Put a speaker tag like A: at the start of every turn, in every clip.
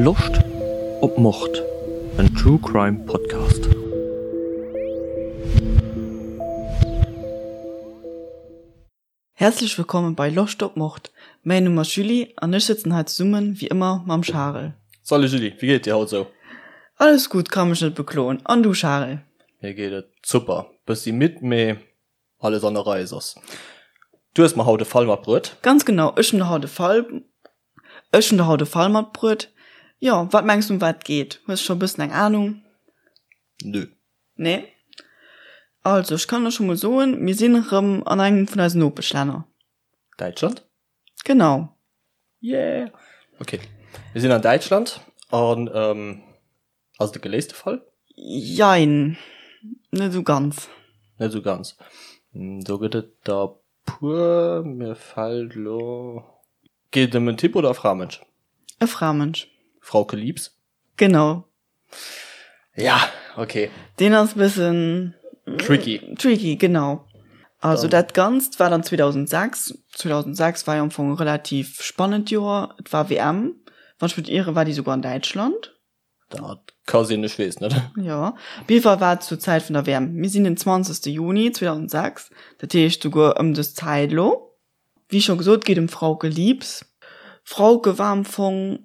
A: Loscht op Mord? En True Crime Podcast.
B: Häerzlech wëllkommen bei Loscht op Mord. Mäin Numm ass Julie an ech sëtzen hei zesummen wéi ëmmer mam Charel.
A: Salut Julie, wéi geet et dir haut sou?
B: Alles gutt, ka mech net bekloen. An du Charel?
A: Mir geet et super, bëssi midd mee alles an der Rei soss. Du hues mer haut e Fall matbruet.
B: Ganz genau, ech hunn der haut e Fall, ech hunn der haut e Fall matbruet. Jo, wat mengs du ëm wat et geet? Hues scho e bëssen eng Anung?
A: Nö.
B: Nee? Also, ech kann der scho mol soen, mir sinn erëm an engem vun eisen Nopeschlänner.
A: Däitschland?
B: Genau.
A: Yeah! Okay, mir sinn an Däitschland an ähm, ass et e geléiste Fall?
B: Jein, net esou ganz.
A: Net esou ganz. Do gëtt et der puer, mir fält elo. Geet et ëm en Typ oder e Framënsch?
B: E Framënsch.
A: Frauke Liebs?
B: Genau.
A: Ja, okay.
B: Deen ass bëssen
A: tricky.
B: Tricky, genau. Also dat Ganzt war dann 2006. 2006 war jo am Fong e relativ spannend Joer. Et war WM. Wann ech mech net ieren, war déi souguer an Däitschland.
A: Dat ka sinn, ech weess net.
B: Jo, op jidde Fall war et zur Zäit vun der WM. Mir sinn den 20. Juni 2006, dat heescht souguer ëm dës Zäit elo. Wéi scho gesot, geet ëm d'Frauke Liebs. D'Frauke war am Fong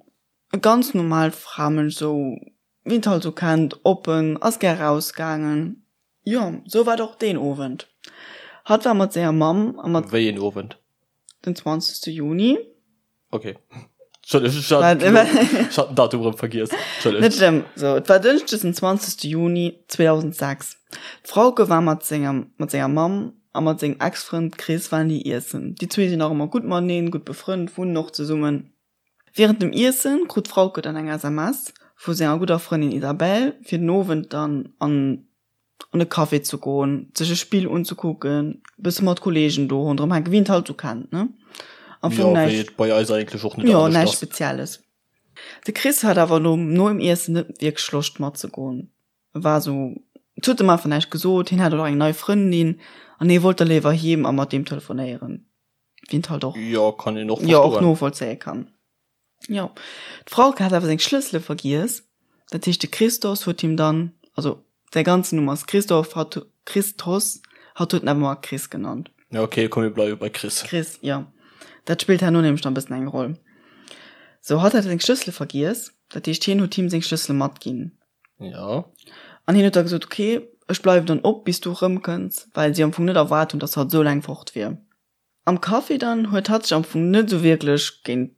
B: e ganz normaalt Framënsch, sou wéi een et halt sou kennt, oppen, ass gär rausgaangen. Jo, sou war et och deen Owend. Hatt war mat senger Mamm a mat.
A: Wéi een Owend?
B: Den 20. Juni.
A: Ok. Entschëlleg, ech hat ech hat den Datum erëm vergiess.
B: Entschëlleg. Net schlëmm. Sou, et war Dënschdes den 20. Juni 2006. D'Frauke war mat sengem, mat senger Mamm a mat sengem Ex-Frënd Chris waren déi iessen. Déi zwee sinn nach ëmmer gutt mateneen, gutt befrënnt, wunnen och zesummen. Wärend dem Iessen krut d'Frauke dann eng SMS vu senger gudder Frëndin Isabelle, fir den Owend dann an an e Café ze goen, sech e Spill unzekucken, e bësse mat Kollegen do ronderëm hänken, wéi een et halt sou kennt, ne?
A: Am Fong Jo, wéi näischt, et bei eis eigentlech och
B: net jo, anescht näischt ass. Spezielles. De Chris hat awer nom nom Iessen net wierklech Loscht matzegoen. E war sou, et huet em einfach näischt gesot, hien hat och eng nei Frëndin an hie wollt da léiwer heem a mat deem telefonéieren. Wéi een et halt och,
A: Jo, kann een och
B: jo, och verstoen. novollzéie kann. Jo, d'Frauke hat awer seng Schlëssele vergiess, dat heescht de Christos huet him dann, also säi ganzen Numm ass Christoph, hatt Christos, hatt huet en awer ëmmer Chris genannt.
A: Ja ok, komm mir bleiwe bei Chris.
B: Chris, jo. Dat spillt herno nämlech nach e bëssen eng Roll. Sou, hatt hat seng Schlëssele vergiess, dat heescht hien huet him seng Schlëssele matginn.
A: Jo.
B: An hien huet da gesot, ok, ech bleiwen dann op bis du erëmkënns, well si am Fong net erwaart hunn, datt hatt esou laang fort wier. Am Café dann huet hatt sech am Fong net esou wierklech géint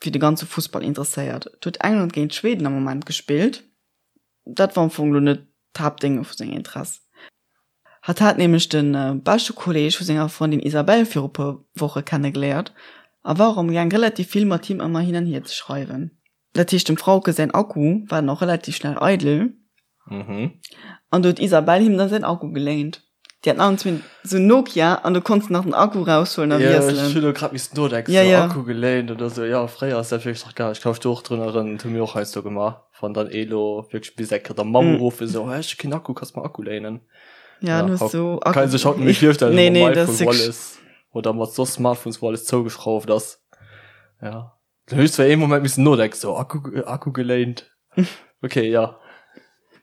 B: fir de ganze Fussball interesséiert. Et huet England géint Schweden am Moment gespillt. Dat war am Fong lo net d'Haaptdénge vu senger Interess. Hatt hat nämlech de beschte Kolleeg vu senger Frëndin Isabelle viru puer Woche kennegeléiert a war och am gaang relativ vill mat him ëmmer hin an hier ze schreiwen. Dat heescht dem Frauke säin Akku war dann och relativ schnell eidel.
A: Mhm.
B: An do huet d'Isabelle him dann säin Akku geléint. Déi haten allen zwee sou Nokia an do konns de nach den Akku raushuelen a
A: Ja, ech wiesselen. hunn elo grad missen nodenken, Ja, sou ja. Akku geléint oder sou. Jo, fréier ass dat wierklech nach gaangen. Ech ka mech do och drun erënneren, dat hu mir och heiansdo gemaach, wann dann ee lo wierklech bis eng Kéier der Mamm uruffen, sou, Hei, ech hu keen Akku, kanns mer Akku léinen?
B: Ja, dann
A: hues du Akku. Kann ee sech haut net méi virstellen, Nee, nee, dat ass iPhone, wou alles, oder mat soss Smartphones, wou alles zougeschrauft ass. Ja. Da hunn ech zwar ee Moment missen nodenken, sou Akku, Akku geléint. Okay, ja.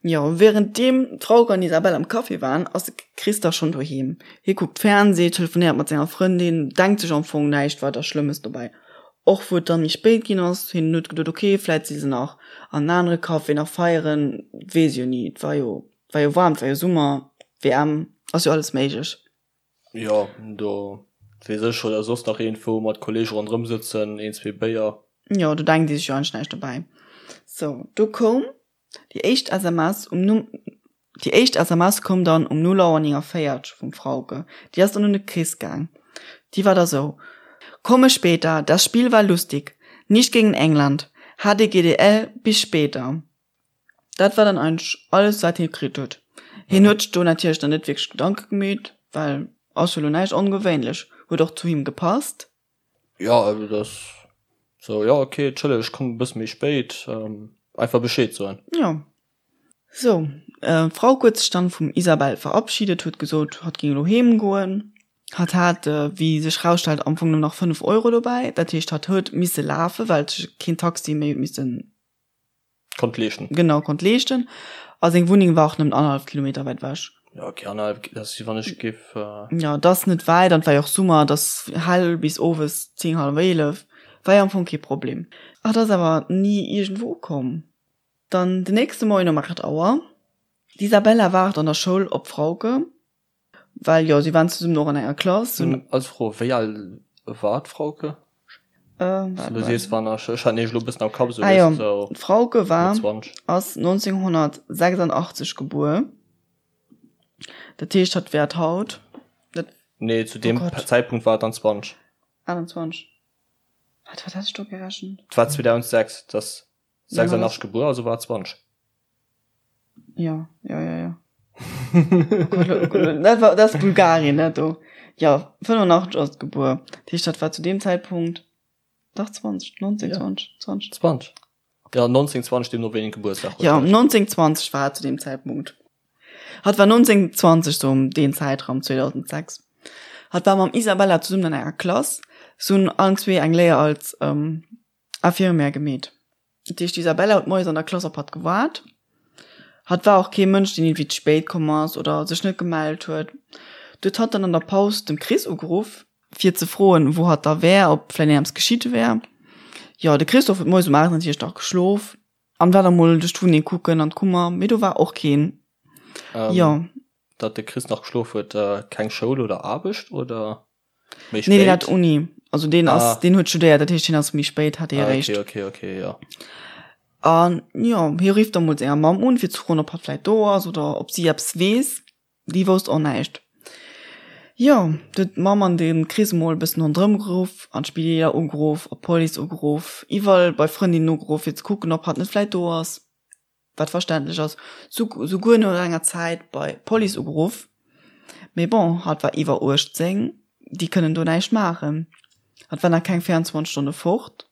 B: Jo, wärenddeem d'Frauke an d'Isabelle am Café waren, ass de Chris da schonn doheem. Hie kuckt Fernsee, telefonéiert mat senger Frëndin, denkt sech am Fong näischt weider Schlëmmes dobäi. Och wou et dann méi spéit ginn ass, hien huet geduet, ok, vläit si se nach an en anere Café nach feieren, weess jo ni, et war jo, war jo waarm, et war jo Summer, WM, ass jo alles méiglech.
A: Jo, do weess ech oder soss nach iergendwou mat Kollege ronderëm sëtzen, een, zwee Béier.
B: Jo, do denkt ee sech jo eigentlech näischt dobäi. Sou, do koum déi éischt SMS um Numm, déi éischt SMS koum dann um 0 Auer 49 vum Frauke. Déi ass dann un de Chris gaang. Déi war da sou, Komme später, das Spiel war lustig, nicht gegen England, HDGDL, bis später. Dat war dann eigentlech alles wat hie kritt huet. Hien huet sech do natierlech dann net wierklech Gedanke gemeet, well ass jo lo näischt ongewéinlech, huet och zu him gepasst.
A: Jo, also dat ass sou, jo ok, entschëlleg ech kommen e bësse méi spéit, einfach Bescheed soen.
B: Jo. Sou, d'Frauke huet sech dann vum Isabelle verabschiedet, huet gesot hatt géing elo heem goen. Hatt hat, wéi sech rausstellt, am Fong nëmmen nach 5 Euro dobäi, dat heescht hatt huet misse lafen, well sech keen Taxi méi huet missen.
A: Konnt leeschten.
B: Genau, konnt leeschten. A seng Wunneng war och nëmmen annerhallef Kilometer wäit ewech.
A: Ja, okay, annerhallef, dat ass wéi wann ech géif.
B: Ja, dat ass net wäit an et war jo och Summer, et ass hell bis owes 10, hallef 11. War jo am Fong kee Problem. Hatt ass awer ni iergendwou ukomm. Dann den nächste Moien um 8 Auer, d'Isabella waart an der Schoul op d'Frauke. Well jo, si waren zesummen och an enger Klass.
A: Hunn als Fro, wéi al war d'Frauke? Du sees wann ech ech hat nämlech elo e bëssen am Kapp esou
B: Ah jo, d'Frauke war ass 1986 gebuer. Dat heescht hatt wäert haut
A: dat Nee, zu deem Zäitpunkt war et dann 20.
B: 28. Wat wat hat ech do gerechent?
A: Et war 2006, dat 86 gebuer, also war et 20.
B: Ja, ja, ja, ja. Oh Gott, dat war, dat ass Bulgarien, dat do. Ja, 85 ass et gebuer. Dat heescht, dat war zu deem Zäitpunkt dach 20, 19, ja. 20,
A: 20. 20. Ja, 19, 20, deemno wéi een Gebuertsdag
B: huet. Ja, 19, 20 war et zu deem Zäitpunkt. Hatt war 19, 20, sou ëm deen Zäitraum, 2006. Hatt war mam Isabella zesummen an enger Klass. Se hunn allen zwee eng Léier als ähm, Infirmière gemeet. Dat heescht, d'Isabella huet moies an der Klass op hatt gewaart. Hatt war och kee Mënsch, deen iergendwéi ze spéit komm ass oder sech net gemellt huet. Du huet hatt dann an der Paus dem Chris ugeruff, fir ze froen, wou hatt da wär, ob vläicht eppes geschitt wär. Jo, de Christophe huet moies um 8 natierlech nach geschlof an war da mol duerch d'Wunneng kucken an d'Kummer, mee do war och keen.
A: Jo. Datt de Chris nach geschlof huet, keng Schoul oder Aarbecht, oder?
B: Méi spéit? Nee, deen hat Uni. Also deen ass, ah. deen huet studéiert, dat heescht, deen ass méi spéit, hat dee ah,
A: eréischt. Okay, okay, okay, ja.
B: An jo, hie rifft da mol senger Mamm un, fir ze froen, ob hatt vläit do ass oder ob si eppes weess. Déi wousst och näischt. Jo, du huet d'Mamm an de Chris mol e bëssen ronderëm geruff, an d'Spideeler ugeruff, op d'Police ugeruff, iwwerall bei Frëndinnen ugeruff, fir ze kucken, ob hatt net vläit do ass. wat verständlech ass, souguer no enger Zäit bei d'Police ugeruff, mee bon, hatt war iwwer 18, déi kënnen do näischt maachen, hatt war nach keng 24 Stonne fort,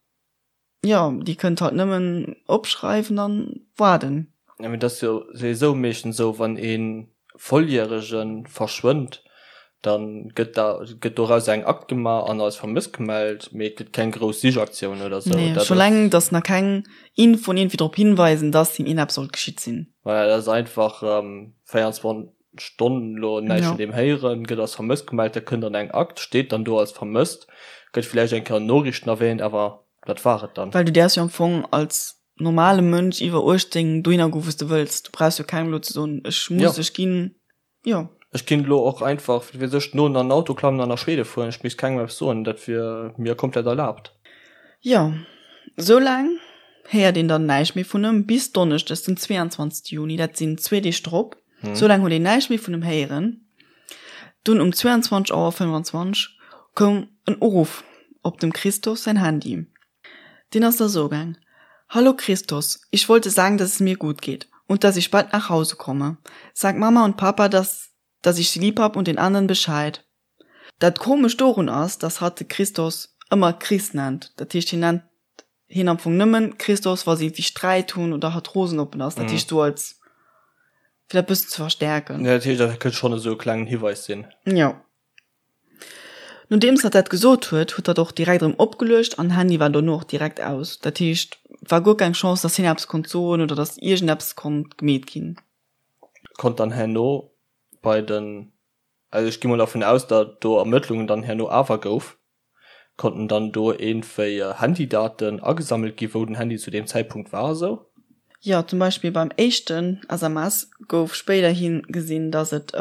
B: jo, déi kënnt halt nëmmen opschreiwen an waarden.
A: Jo, mee dat ass jo souwisou meeschtens esou, wann ee Volljärege verschwënnt, da gëtt da gëtt doraus eng Akt gemaach an als vermësst gemellt, mee et gëtt keng grouss Sichaktioun oder
B: sou. Nee, scho laang, datt nach keng Infoen iergendwéi drop hinweisen, datt him iergendeppes sollt geschitt sinn.
A: Voilà, dat ass einfach 24 Stonnen elo näischt vun deem héieren, gëtt als vermësst gemellt, da kënnt dann eng Akt, steet dann do als vermësst, gëtt villäicht eng Kéier an Noriichten erwähnt, awer dat war et dann.
B: Well du däerfs jo am Fong als normale Mënsch iwwer 18 dohinner goen, wou s de wëlls. Du brauchs jo kengem elo ze soen, ech muss, ech ginn. Jo.
A: Ech kinnt elo och einfach, wat weess ech, no an den Auto klammen an nach Schwede fueren, ech misst kengem eppes soen, dat wier mir komplett erlaabt.
B: Jo, esou laang héiert een dann näischt méi vun em, bis Donneschdes den 22 Juni, dat sinn zwee Deeg drop, esou laang huet een näischt méi vun em héieren. Dunn um 22 Auer 25 koum en Uruff op dem Christos säin Handy. Deen ass da sou gaang, Hallo Christos, ich wollte sagen, dass es mir gut geht und dass ich bald nach Hause komme. Sag Mama und Papa, dass dass ich sie lieb hab und den anderen Bescheid. Dat Komescht dorun ass, dass hatt de Christos ëmmer Chris nennt. Dat heescht, hien nennt hien am Fong nëmmen Christos, wa si iergendwéi Sträit hunn oder hatt rosen op en ass. Dat heescht, sou als, fir dat bëssen ze verstäerken.
A: Ja, dat heescht, dat kënnt schonn esou e klengen Hiweis sinn.
B: Jo. Nodeems hatt dat gesot huet, huet hatt och direkt erëm opgeluecht an Handy war dono och direkt aus. Dat heescht, war guer keng Chance, dass hien eppes konnt soen oder dass iergendeppes konnt gemeet ginn.
A: Konnt dann herno bei den, also ech gi mol dervun aus, datt do Ermëttlungen dann herno awer gouf, konnten dann do iergendwéi Handydaten agesammelt gi wou den Handy zu deem Zäitpunkt war a sou?
B: Jo, zum Beispill beim éischten SMS gouf spéiderhi gesinn, dass et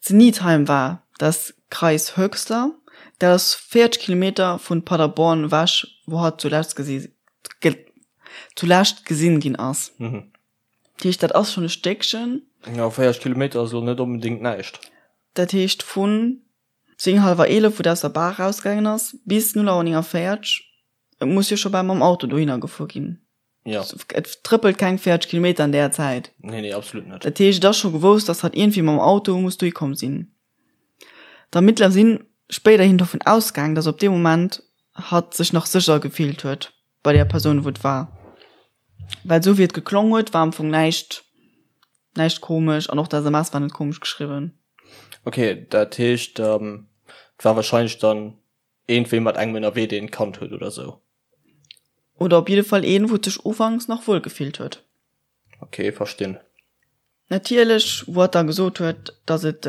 B: Zu Niedheim war das Kreis Höxter, dat ass 40 Kilometer vun Paderborn ewech, wou hatt zulescht gesi zulescht gesinn ginn ass. Dat heescht, dat ass schonn e Stéckchen.
A: Jo, 40 Kilometer ass elo net onbedéngt näischt.
B: Dat heescht vun 10 hallwer 11, wou et aus der Bar erausgaangen ass, bis 0 Auer 49, et muss jo scho bal mam Auto dohinner gefuer ginn.
A: Ja.
B: Et trëppelt keng 40 Kilometer an där Zäit.
A: Nee, nee, absolut net.
B: Dat heescht, et ass scho gewousst, dass hatt iergendwéi mam Auto muss dohi komm sinn. D'Ermittler si spéiderhin dovun ausgaang, dass op dee Moment hatt sech nach sécher gefillt huet bei där Persoun, wou et war. Well esou wéi et geklong huet, war am Fong näischt, näischt komesch an och d'SMS war net komesch geschriwwen.
A: Okay, dat heescht, et war wahrscheinlech dann iergendwéi mat engem ënnerwee, deen et kannt huet oder sou.
B: Oder op jidde Fall een, wou et sech ufanks nach wuel gefillt huet.
A: Ok, verstinn.
B: Natierlech, wou hatt da gesot huet, dass et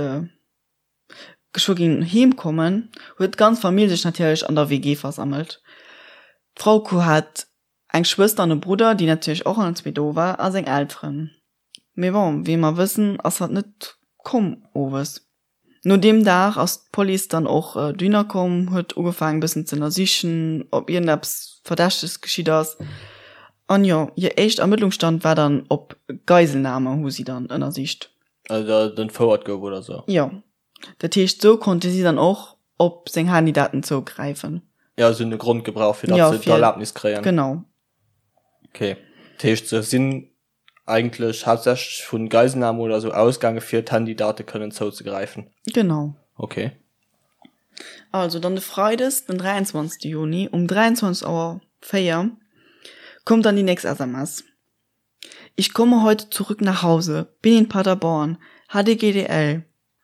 B: geschwë géing heem kommen, huet d'ganz Famill sech natierlech an der WG versammelt. D'Frauke hat eng Schwëster an e Brudder, déi natierlech och allen zwee do war, a seng Elteren. Mee bon, wéi mer wëssen, ass hatt net komm owes. No deem Dag ass d'Police dann och dohinner komm, huet ugefaangen e bëssen ze ënnersichen, ob iergendeppes Verdächteges geschitt ass. An jo, hir éischt Ermëttlungsstand war dann op Geiselnahme, hu si dann ënnersicht.
A: Also datt et entfouert gouf oder sou?
B: Jo. Dat heescht, sou konnte si dann och op seng Handydaten zougräifen.
A: Jo, si hunn e Grond gebraucht, fir datt se d'Erlaabnis kréien.
B: Genau.
A: Okay. Dat heescht, se sinn eigentlech haaptsächlech vu Geiselnahme oder sou ausgaange fir d'Handydate kënnen zouzegräifen.
B: Genau.
A: Okay.
B: Also dann de Freides, den 23. Juni um 23 Auer 4 kommt dann déi nächst SMS. Ich komme heute zurück nach Hause, bin in Paderborn, HDGDL.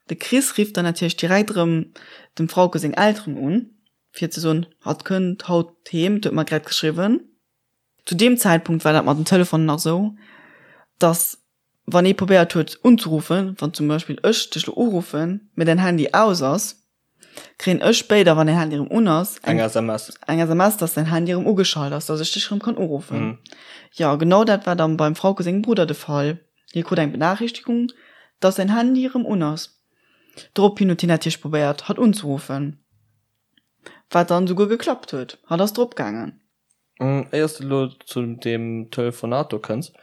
B: De Chris rifft dann natierlech direkt erëm dem Frauke seng Elteren un, fir ze soen, hatt kënnt haut heem, et huet mer grad geschriwwen. Zu deem Zäitpunkt war dat mat den Telefonen nach esou, dass wann ee probéiert huet unzeruffen, wann zum Beispill ech dech lo uruffen, mee däin Handy aus ass, kréien ech spéider, wann däin Handy erëm un ass,
A: eng SMS,
B: eng SMS, dass däin Handy erëm ugeschalt ass, dass ech dech erëm kann uruffen. Jo, genau dat war dann beim Frauke sengem Brudder de Fall. Hie krut eng Benachrichtigung, dass säin Handy erëm un ass. Dorophin huet hien natierlech probéiert, hatt unzeruffen, wat dann esouguer geklappt huet. Hatt ass drop gaangen.
A: Éiers de elo zu deem Telefonat do kënns,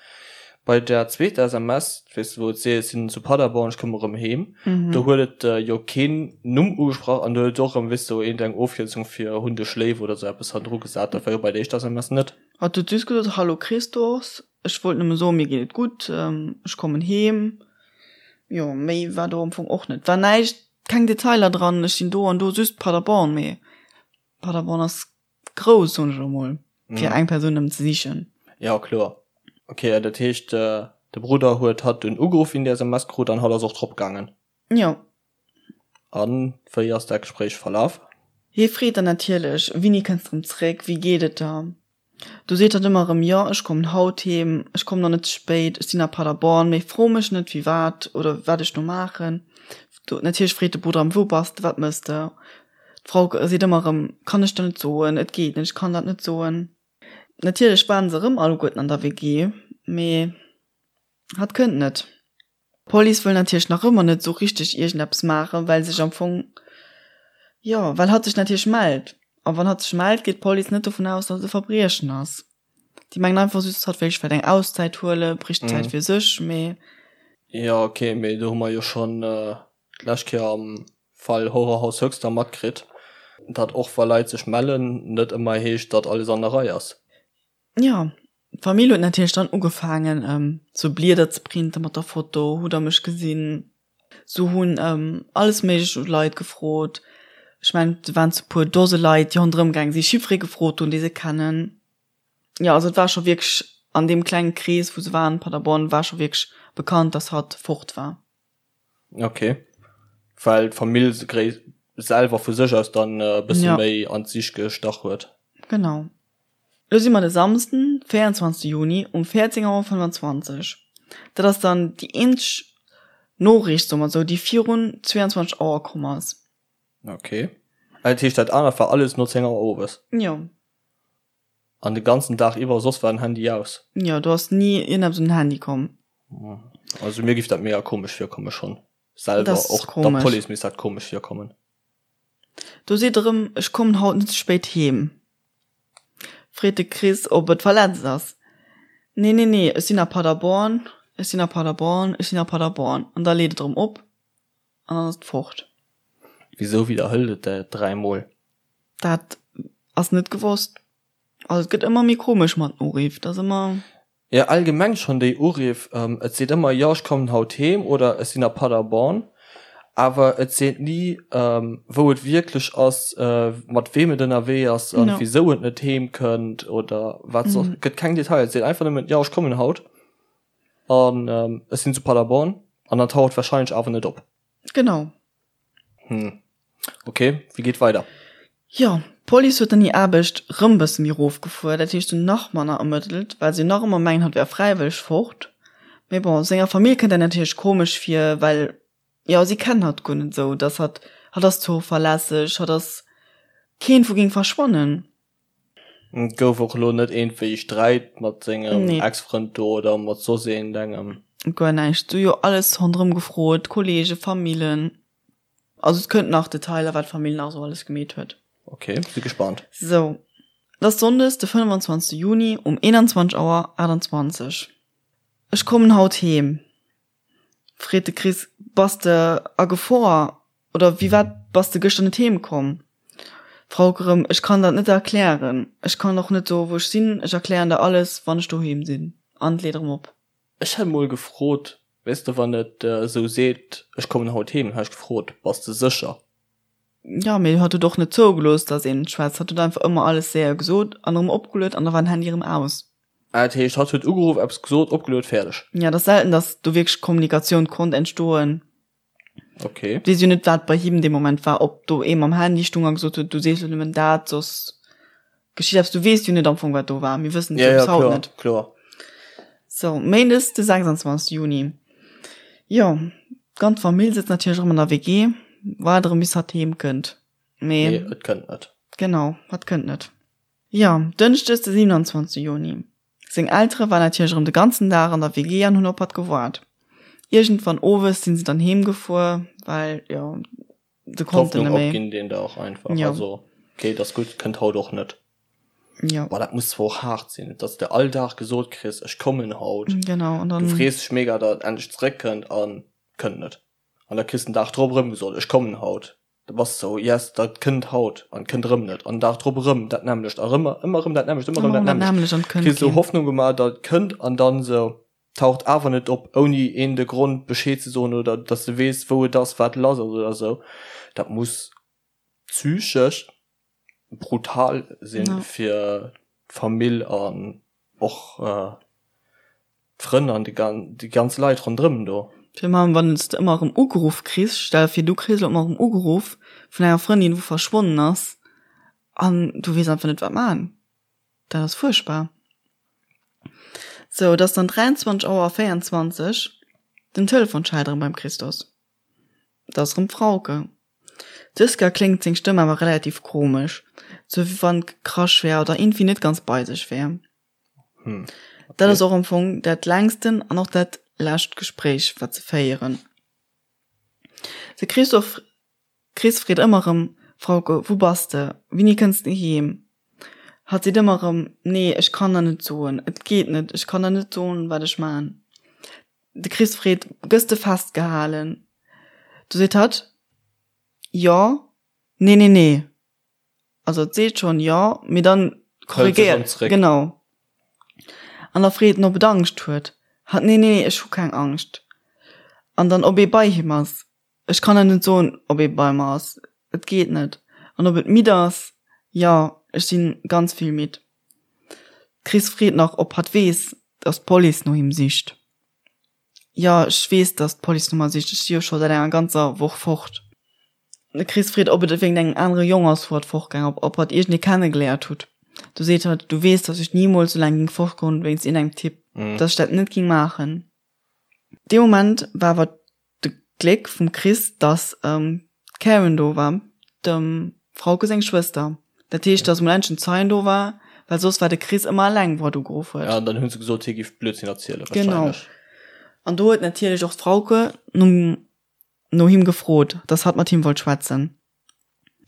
A: bei der zweeter SMS, weess de, wou et seet, ech sinn zu Paderborn, ech komme rëm heem, do huet et jo keen Numm ugesprach an do huet et och erëm, weess de, iergend eng Ofkierzung fir hunn dech léif oder esou eppes hannendru gesat. Dat war jo bei der éischter SMS net.
B: Hatt huet just gesot, Hallo Christos, ech wollt nëmme soen, mir geet et gutt, ech kommen heem. Jo, méi war do am Fong och net. War näischt, keng Detailer dran, ech sinn do an do, just Paderborn, mee Paderborn ass grouss, soen ech elo mol, fir eng Persoun nëmmen ze sichen.
A: Jo, kloer. Ok, dat heescht, de Brudder huet hatt dunn ugeruff, wéi en déi SMS krut, an hatt ass och drop gaangen?
B: Jo.
A: A wéi ass dat Gespréich verlaf?
B: Hie freet dann natierlech, Wéini kënns de rëm zréck? Wéi geet et der? Du seet hatt ëmmer erëm, Jo, ech kommen haut heem, ech kommen och net ze spéit, ech sinn a Paderborn, mee fro mech net, firwat oder wat ech do maachen. Natierlech freet de Brudder erëm, Wou bass de? Wat mëss de? D'Frau seet ëmmer erëm, Kann ech der net soen, et geet net, ech kann dat net soen. Natierlech waren se erëm alleguerten an der WG, mee hatt kënnt net. D'Police wëll natierlech nach ëmmer net esou richteg iergendeppes maachen, well sech am Fong, jo, well hatt sech natierlech mellt. A wann hatt sech mellt, geet d'Police net dovun aus, datt et e Verbriechen ass. Déi mengen einfach just, hatt wéilt vläicht eng Auszäit huelen, bréicht Zäit fir sech, mee.
A: Jo, ok, mee do hu mer jo schonn d'lescht Kéier am Fall Horrorhaus Höxter matkritt, datt och wa Leit sech mellen, net ëmmer heescht, datt alles an der Rei ass.
B: Jo, d'Famill huet natierlech dann ugefaangen, sou Blieder ze printen mat der Foto, Hutt der mech gesinn? Se hunn alles méiglech u Leit gefrot. Ech mengen, et waren zu puer Dose Leit, déi ronderëm gaange sinn, Chiffré gefrot hunn, déi se kennen. Jo, also et war scho wierklech an deem klenge Krees, wou se waren, Paderborn, war scho wierklech bekannt, datt hatt fort war.
A: Ok, well d'Famill selwer vu sech aus dann e bësse méi an d'Sich gestach huet.
B: Genau. Lo si mer de Samsden, 24 Juni um 14 Auer 25. Dat ass dann déi eenzeg Noriicht, soe mer esou, déi virun 22 Auer komm ass.
A: Ok, dat heescht dat anert war alles no 10 Auer owes?
B: Jo.
A: An de ganzen Dag iwwer, soss war den Handy aus?
B: Jo, do ass ni iergendeppes un den Handy komm.
A: Also mir giff dat mega komesch virkomme schonn selwer, och der Police misst dat komesch virkommen.
B: Do seet erëm, ech kommen haut net ze spéit heem. Freet de Chris, ob et verletzt ass. Nee, nee, nee, ech sinn a Paderborn, ech sinn a Paderborn, ech sinn a Paderborn. An da leet et erëm op an dann ass et fort.
A: Wisou widderhëlt et dat dräimol?
B: Dat ass net gewosst. Also et gëtt ëmmer méi komesch mat den Uriff, et ass ëmmer.
A: Jo, allgemeng schonn déi Uriff. Et seet ëmmer, jo ech kommen haut heem oder ech sinn a Paderborn, awer et seet ni wou et wierklech ass, mat weem et ënnerwee ass an wisou et net heem kënnt oder wat soss. Et gëtt keng Detailer, et seet einfach nëmmen, jo ech kommen haut an ech sinn zu Paderborn an dann taucht warscheinlech awer net op.
B: Genau.
A: Hm. Ok, wéi geet weider?
B: Jo, d'Police huet dann hir Aarbecht rëm bësse méi rofgefuer, dat heescht, se hunn nach manner ermëttelt, well se nach ëmmer mengen, hatt wär fräiwëlleg fort. Mee bon, senger Famill kënnt dat natierlech komesch vir, well, jo, si kennen hatt guer net esou, dass hatt, hatt ass zuverlässeg, hatt ass keen, wou géing verschwannen.
A: Et gouf och elo net iergendwéi Sträit mat sengem Ex-Frënd do oder mat soss iergendengem?
B: Guer näischt. Si hu jo alles ronderëm gefrot, Kollegen, Famillen. Also et kënnt nach Detailer, wat d'Famill nach esou alles gemeet huet.
A: Ok, si gespannt.
B: Sou, et ass Sonndes de 25 Juni um 21 Auer 28. Ech kommen haut heem. Freet de Chris, Bass de a Gefor oder wéi wat bass de gëschter net heem komm? D'Frauke rëm, Ech kann dat net erklären. Ech kann och net soen, wou ech sinn. Ech erklären der alles, wann ech doheem sinn. An leet erëm op.
A: Ech hätt mol gefrot, weess de, wann et esou seet, ech kommen haut heem, dann hätt ech gefrot, bass de sécher?
B: Jo, mee hatt huet och net zougelooss, datt een schwätzt. Hatt huet einfach ëmmer alles séier gesot an erëm opgeluet an da war den Handy erëm aus.
A: Ah, dat heescht, hatt huet ugeruff, eppes gesot, opgeluet, fäerdeg.
B: Jo, et ass selten, datt do wierklech Kommunikatioun konnt entstoen.
A: Okay.
B: Weess jo net, wat bei him dee Moment war, ob do ee mam Handy stung a gesot huet, du sees lo nëmmen dat, soss geschitt eppes. Du weess jo net am Fong, wat do war. Mir wëssen et
A: jo
B: bis
A: haut
B: kloer,
A: net. Kloer.
B: So, Méindes de 26. Juni. Jo, d'ganz Famill sëtzt natierlech erëm an der WG, waart erëm bis hatt heem kënnt.
A: Mee. Mee et kënnt net.
B: Genau, hatt kënnt net. Jo, Dënschdes de 27. Juni. Seng Eltere waren natierlech erëm de ganzen Dag an der WG an hunn op hatt gewaart. Iergendwann owes sinn se dann heem gefuer, well jo, se konnten
A: net méi. Opginn deen Dag einfach. Jo. Also, okay, et ass gutt, kënnt haut och net.
B: Jo.
A: Boah, dat muss zwar och haart sinn, dass de all Dag gesot kriss, ech kommen haut.
B: Genau,
A: an dann. Du frees dech mega, datt et endlech zeréckkënnt an kënnt net. An da kriss de den Dag drop erëm gesot, ech kommen haut. Da bass de sou, yes, dat kënnt haut an kënnt erëm net an den Dag drop erëm dat nämmlecht a rëm ëmmer erëm dat nämmlecht, ëmmer erëm dat nämmlecht. Kriss sou Hoffnung gemaach, datt et kënnt an dann sou taucht awer net op, ouni een de Grond Bescheed ze soen oder datt s de weess, wou et ass, wat lass ass oder sou. Dat muss psychesch brutal sinn fir d'Famill an och d'Frënn an déi ganz Leit ronderëm do.
B: Virun allem wann s de ëmmer erëm ugeruff kriss, stell der vir du kriss elo ëmmer erëm ugeruff vun enger Frëndin wou verschwonnen ass an du weess einfach net wat man. Dat ass fuerchtbar. Sou, et ass dann 23 Auer a 24, den Telefon schellt erëm beim Christos. Et ass erëm d'Frauke. Dës Kéier kléngt seng Stëmm awer relativ komesch, sou wéi wann gekrasch wär oder iergendwéi net ganz bei sech wär.
A: Hm, okay.
B: Dat ass och am Fong dat längsten an och dat lescht Gespréich, wat se féieren. De Christophe, Chris freet ëmmer erëm, Frauke, wou bass de? Wéini kënns de heem? Hatt seet ëmmer erëm, Nee, ech kann der net soen, et geet net, ech kann der net soen, wat ech man. De Chris freet, Gëss de festgehalen? Du seet hatt, Jo, nee, nee, nee. Also et seet schonn jo, mee dann korrigéiert, genau. An da freet en, ob et Angscht huet. Hatt, Nee, nee, ech hu keng Angscht. An dann, ob ee bei him ass. Ech kann der net soen, ob ee bei mer ass, et geet net. An ob et midd ass, Jo, ech si ganz vill midd. D'Chris freet nach, ob hatt weess, dass d'Police no him sicht. Jo, ech weess, dass d'Police no mer sicht, ech si jo scho säit enger ganzer Woch fort. De Chris freet, ob et wéinst engem anere Jong ass, wou hatt fortgaang, ob ob hatt iergendee kennegeléiert hutt. Du seet hatt, Du weess, dass ech nimools sou laang géing fortgoen wéinst iergendengem Typ, dass ech dat net géing maachen. Dee Moment war awer de Gléck vum Chris, dass d'Karen do war, dem Frauke seng Schwëster. Dat heescht, dass emol endlech en Zeien do war, well soss war de Chris ëmmer eleng, wou hatt ugeruff huet.
A: Ja, an dann hu se gesot, hie géif Blödsinn erzielen,
B: Genau. wahrscheinlech. An do huet natierlech och d'Frauke nom no him gefrot, dass hatt mat him wollt schwätzen.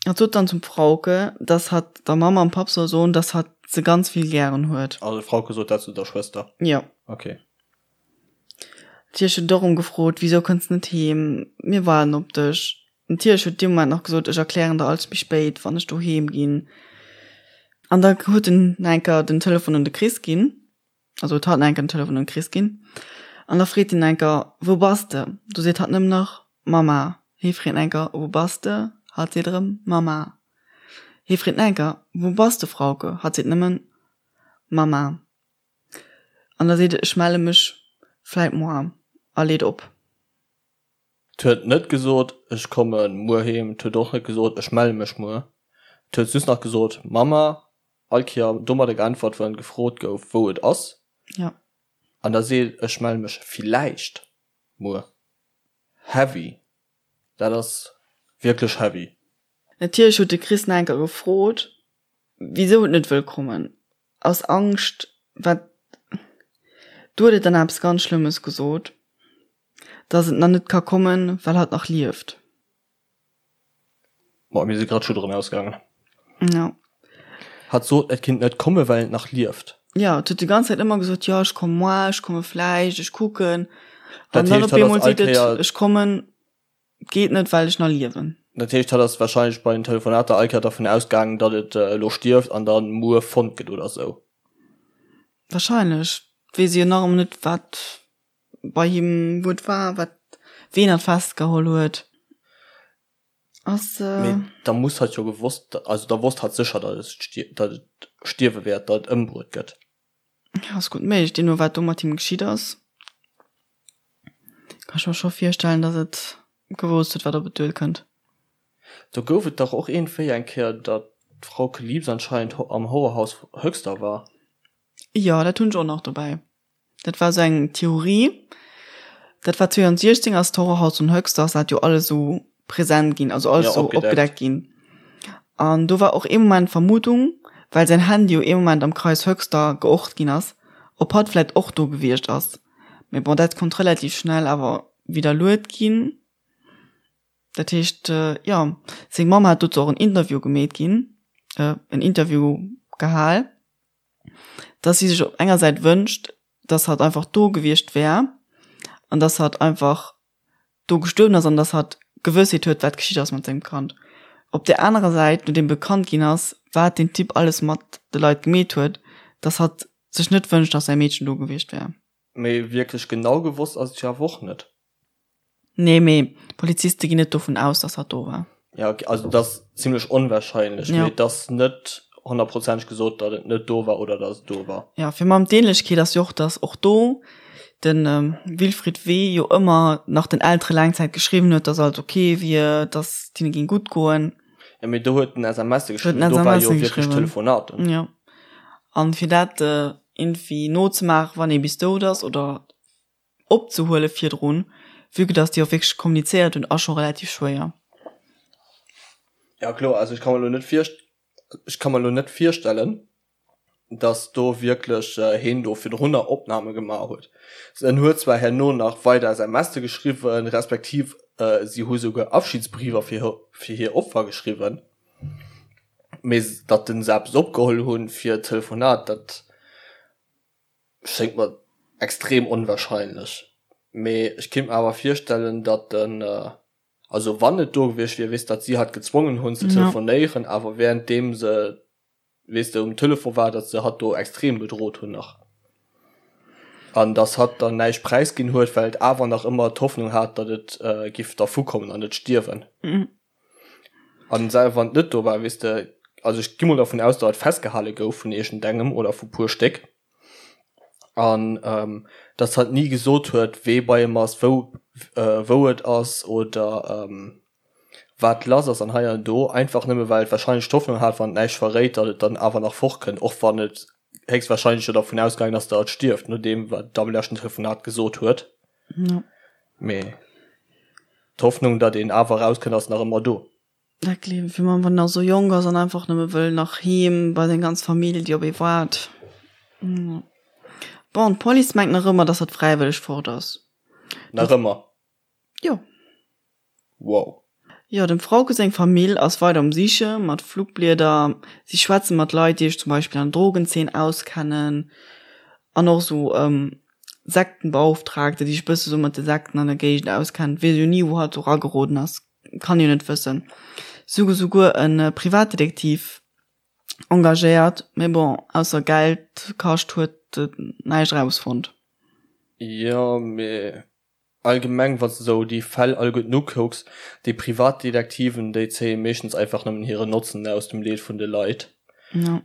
B: Hatt sot dann zum Frauke, dass hatt der Mamm an Papp soll soen, dass hatt se ganz vill gären huet.
A: Also d'Frauke sot dat zu der Schwëster?
B: Jo.
A: Okay.
B: Natierlech huet et och erëm gefrot, Wisou kënns net heem? Mir waarden op dech. Natierlech huet dee Moment nach gesot, Ech erklären der alles méi spéit, wann ech doheem ginn. An da huet en nach eng Kéier den Telefon un de Chris ginn. Also huet hatt nach eng Kéier den Telefon un de Chris ginn. An da freet hien nach eng Kéier, Wou bass de? Du seet hatt nëmmen nach, Mama. Hie freet nach eng Kéier, Wou bass de? Hatt seet erëm, Mama. Hie freet nach eng Kéier, Wou bass de, Frauke? Hatt seet nëmmen, Mama. An da seet et, Ech melle mech vläit moar. A leet op.
A: 't huet net gesot, ech komme muer heem, 't huet och net gesot, ech melle mech muer. Et huet just nach gesot, Mamma, all Kéier domadder geäntwert, wann gefrot gouf, wou et ass.
B: Ja.
A: An da seet, ech melle mech villäicht muer. Heavy. Dat ass wierklech heavy.
B: Natierlech huet de Chris nach eng Kéier gefrot, wisou et net wëll kommen. Aus Angscht, wat, do huet et dann eppes ganz Schlëmmes gesot, dass et nach net ka kommen, well hatt nach lieft.
A: Boah, mir si grad Schudderen ausgaangen.
B: Ja.
A: Hatt sot, et kinnt net komme well et nach lieft.
B: Ja, et huet déi ganz Zäit ëmmer gesot, jo ech komme moar, ech komme vläicht, ech kucken. An dann op eemol seet et, ech kommen, et geet net, well ech nach liewen.
A: Dat heescht, hatt ass warscheinlech bei den Telefonater all Kéier dervun ausgaangen, datt et elo stierft an da muer fonnt gëtt oder sou.
B: Warscheinlech. Weess ee jo nach ëmmer net, wat bei him, wou et war, wat, ween hatt festgeholl huet.
A: Ass. Mee da muss hatt jo gewosst, also da wosst hatt sécher, datt et, datt et stierwe wäert, datt et ëmbruet gëtt.
B: Ja, ass gutt méiglech, deemno wat do mat him geschitt ass, kann ech mer scho virstellen, datt et gewousst huet, wat op et duerkënnt.
A: Do gouf et dach och iergendwéi eng Kéier, datt d'Frauke Liebs anscheinend am Horrorhaus Höxter war.
B: Jo, dat hunn ech och nach dobäi. Dat war sou eng Theorie. Dat war 2016 ass d'Horrorhaus von Höxter ass dat jo alles sou präsent ginn, also alles sou opgedeckt ginn. An do war och ee Moment d'Vermutung, well säin Handy jo ee Moment am Kreis Höxter geort ginn ass, ob hatt vläit och do gewiescht ass. Mee bon, dat konnt relativ schnell awer widderluet ginn. Dat heescht, jo, seng Mamm hat dozou och en Interview gemeet ginn, en Interview gehal. dass si sech op enger Säit wënscht, dass hatt einfach do gewiescht wär an dass hatt einfach do gestuerwen ass an dass hatt Gewëssheet huet, wat geschitt ass mat sengem Kand. Op där anerer Säit, nodeem bekannt ginn ass, wat deen Typ alles mat de Leit gemeet huet, dass hatt sech net wënscht, dass säi Meedchen do gewiescht wär.
A: Mee wierklech genau gewosst ass et jo awer och net.
B: Nee, mee d'Poliziste ginn net dovun aus, dass hatt do war.
A: Ja, okay, also et ass zimlech onwahrscheinlech, mee et ass net honnertprozenteg gesot, datt et net do war oder datt et do war.
B: Ja, fir mam d'Ähnlechkeet ass jo och, datt och do de Wilfried W. jo ëmmer nach den Eltere laang Zäit geschriwwen huet, datt alles ok wier, datt et hinne géing gutt goen.
A: Ja, mee do huet en SMSe geschriwwen, do war jo wierklech
B: Telefonaten. Jo, an fir dat iergendwéi nozemaachen, wann ee bis dout ass oder opzehuele virdrun, vue que dass déi och wierklech kommunizéiert hunn, ass scho relativ schwéier.
A: Ja kloer, also ech ka mer elo net virst ech ka mer elo net virstellen, dass do wierklech heen do virdrunner Opname gemaach huet. En huet zwar herno nach weider SMSe geschriwwen, respektiv si hu souguer Abschiedsbriefer fir fir hir Opfer geschriwwen, mee datt en se eppes opgeholl hunn fir d'Telefonat, dat Schéngt mer extrem onwahrscheinlech, mee ech kinnt mer awer virstellen, datt en, also wann et do gewiescht wier, weess, datt si hatt gezwongen hunn ze telefonéieren, awer währenddeem se, weess de, um Telefon war, datt se hatt do extrem bedrot hunn nach an datt hatt dann näischt präisginn huet, well et awer nach ëmmer d'Hoffnung hat, datt et giff dervukommen an net stierwen. An selwer wann et net do war, weess de, also ech gi mol dervun aus, datt et festgehale gouf vun iergendengem oder vu puer Stéck an datt hatt ni gesot huet, wee bei em ass, wou wou et ass oder wat lass ass an hei an do, einfach nëmme well et warscheinlech d'Hoffnung hat, wann et näischt verréit, datt et dann awer nach fortkënnt, och wann et héchstwarscheinlech jo dervun ausgaangen ass, datt et stierft, nodeem wat et am leschten Telefonat gesot huet. Mee d'Hoffnung, datt een awer erauskënnt, ass nach ëmmer do.
B: Dat gleewen ech, wann een nach esou jonk ass an einfach nëmme wëll nach heem bei seng ganz Famill, déi op ee waart. Bon, d'Police mengt nach ëmmer, datt hatt fräiwëlleg fort ass.
A: Nach ëmmer?
B: Jo.
A: Wow.
B: Jo, dem Frauke seng Famill ass weider um Siche mat Flugblieder. Si schwätze mat Leit, déi sech zum Beispill an der Drogenzeen auskennen an och esou Sektenbeauftragte, déi sech bësse sou mat de Sekten an der Géigend auskennen. Weess jo ni, wou hatt do erageroden ass, kann jo net wëssen. Si hu souguer e Privatdetektiv engagéiert, mee bon, ausser Geld kascht huet et näischt erausfonnt.
A: Jo, mee Allgemeng wanns de sou déi Fäll alleguerten ukucks, déi Privatdetektiven déi zéie meeschtens einfach nëmmen hiren Notzen aus dem Leed vun de Leit.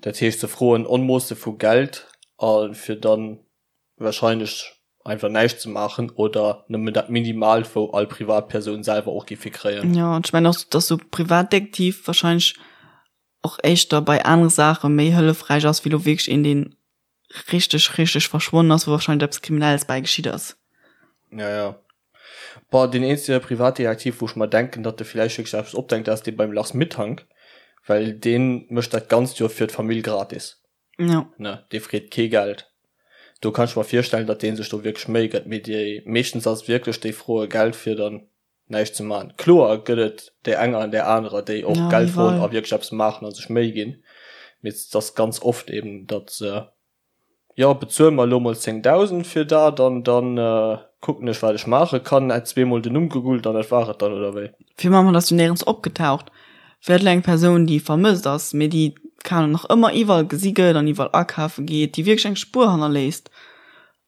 A: Dat heescht se froen Onmoosse vu Geld a fir dann wahrscheinlech einfach näischt ze maachen oder nëmmen dat Minimalt wou all Privatpersoun selwer och géif fir kréien.
B: Jo, an ech mengen och, dass sou Privatdetektiv wahrscheinlech. och éischter bei anere Saache méi hëllefräich ass, wéi lo wierklech een, deen richteg, richteg verschwonnen ass, wou wahrscheinlech eppes Kriminelles bäi geschitt ass.
A: Ja, ja. Boah, deen eenzege Privatdetektiv, wou ech mer denken, datt e villäicht wierklech eppes opdenkt, dat ass dee beim Lars Mittank, well dee mécht dat Ganzt jo fir d'Famill gratis.
B: Ja.
A: Ne, dee freet kee Geld. Do kann ech mer virstellen, datt dee sech do wierklech Méi gëtt, mee déi meeschtens ass et wierklech, déi froe Geld fir dann näischt ze maachen. Kloer gëtt et där enger an där anerer, déi och Geld froen a wierklech eppes maachen a sech Méi ginn, mee et ass ganz oft eben, datt se, jo bezuel mer elo mol 10.000 fir dat an da kucken ech wat ech maache kann, hätt zweemol den Numm gegoogelt an dat war et dann, oder wéi?
B: Fir mam hatt ass jo néierens opgetaucht. Wär et elo eng Persoun, déi vermësst ass, mee déi, keng Ahnung, nach ëmmer iwwerall gesi gëtt an iwwerall akafe geet, déi wierklech eng Spuer hannerléisst,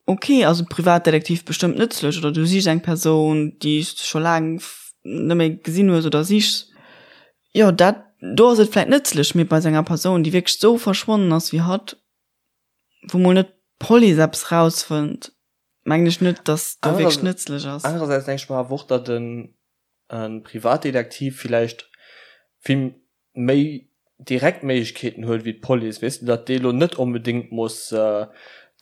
B: Ok, ass e Privatdetektiv bestëmmt nëtzlech, oder du sichs eng Persoun, déi s de scho laang net méi gesinn hues oder sichs. Jo, dat do ass et vläit nëtzlech, mee bei esou enger Persoun, déi wierklech esou verschwonnen ass wéi hatt, wou mol net d'Police eppes rausfënnt, mengen ech net, dass do wierklech nëtzlech ass.
A: Anerersäits denke ech mer awer och, datt e Privatdetektiv villäicht vill méi direkt Méiglechkeeten huet wéi d'Police, weess de, datt déi elo net onbedéngt muss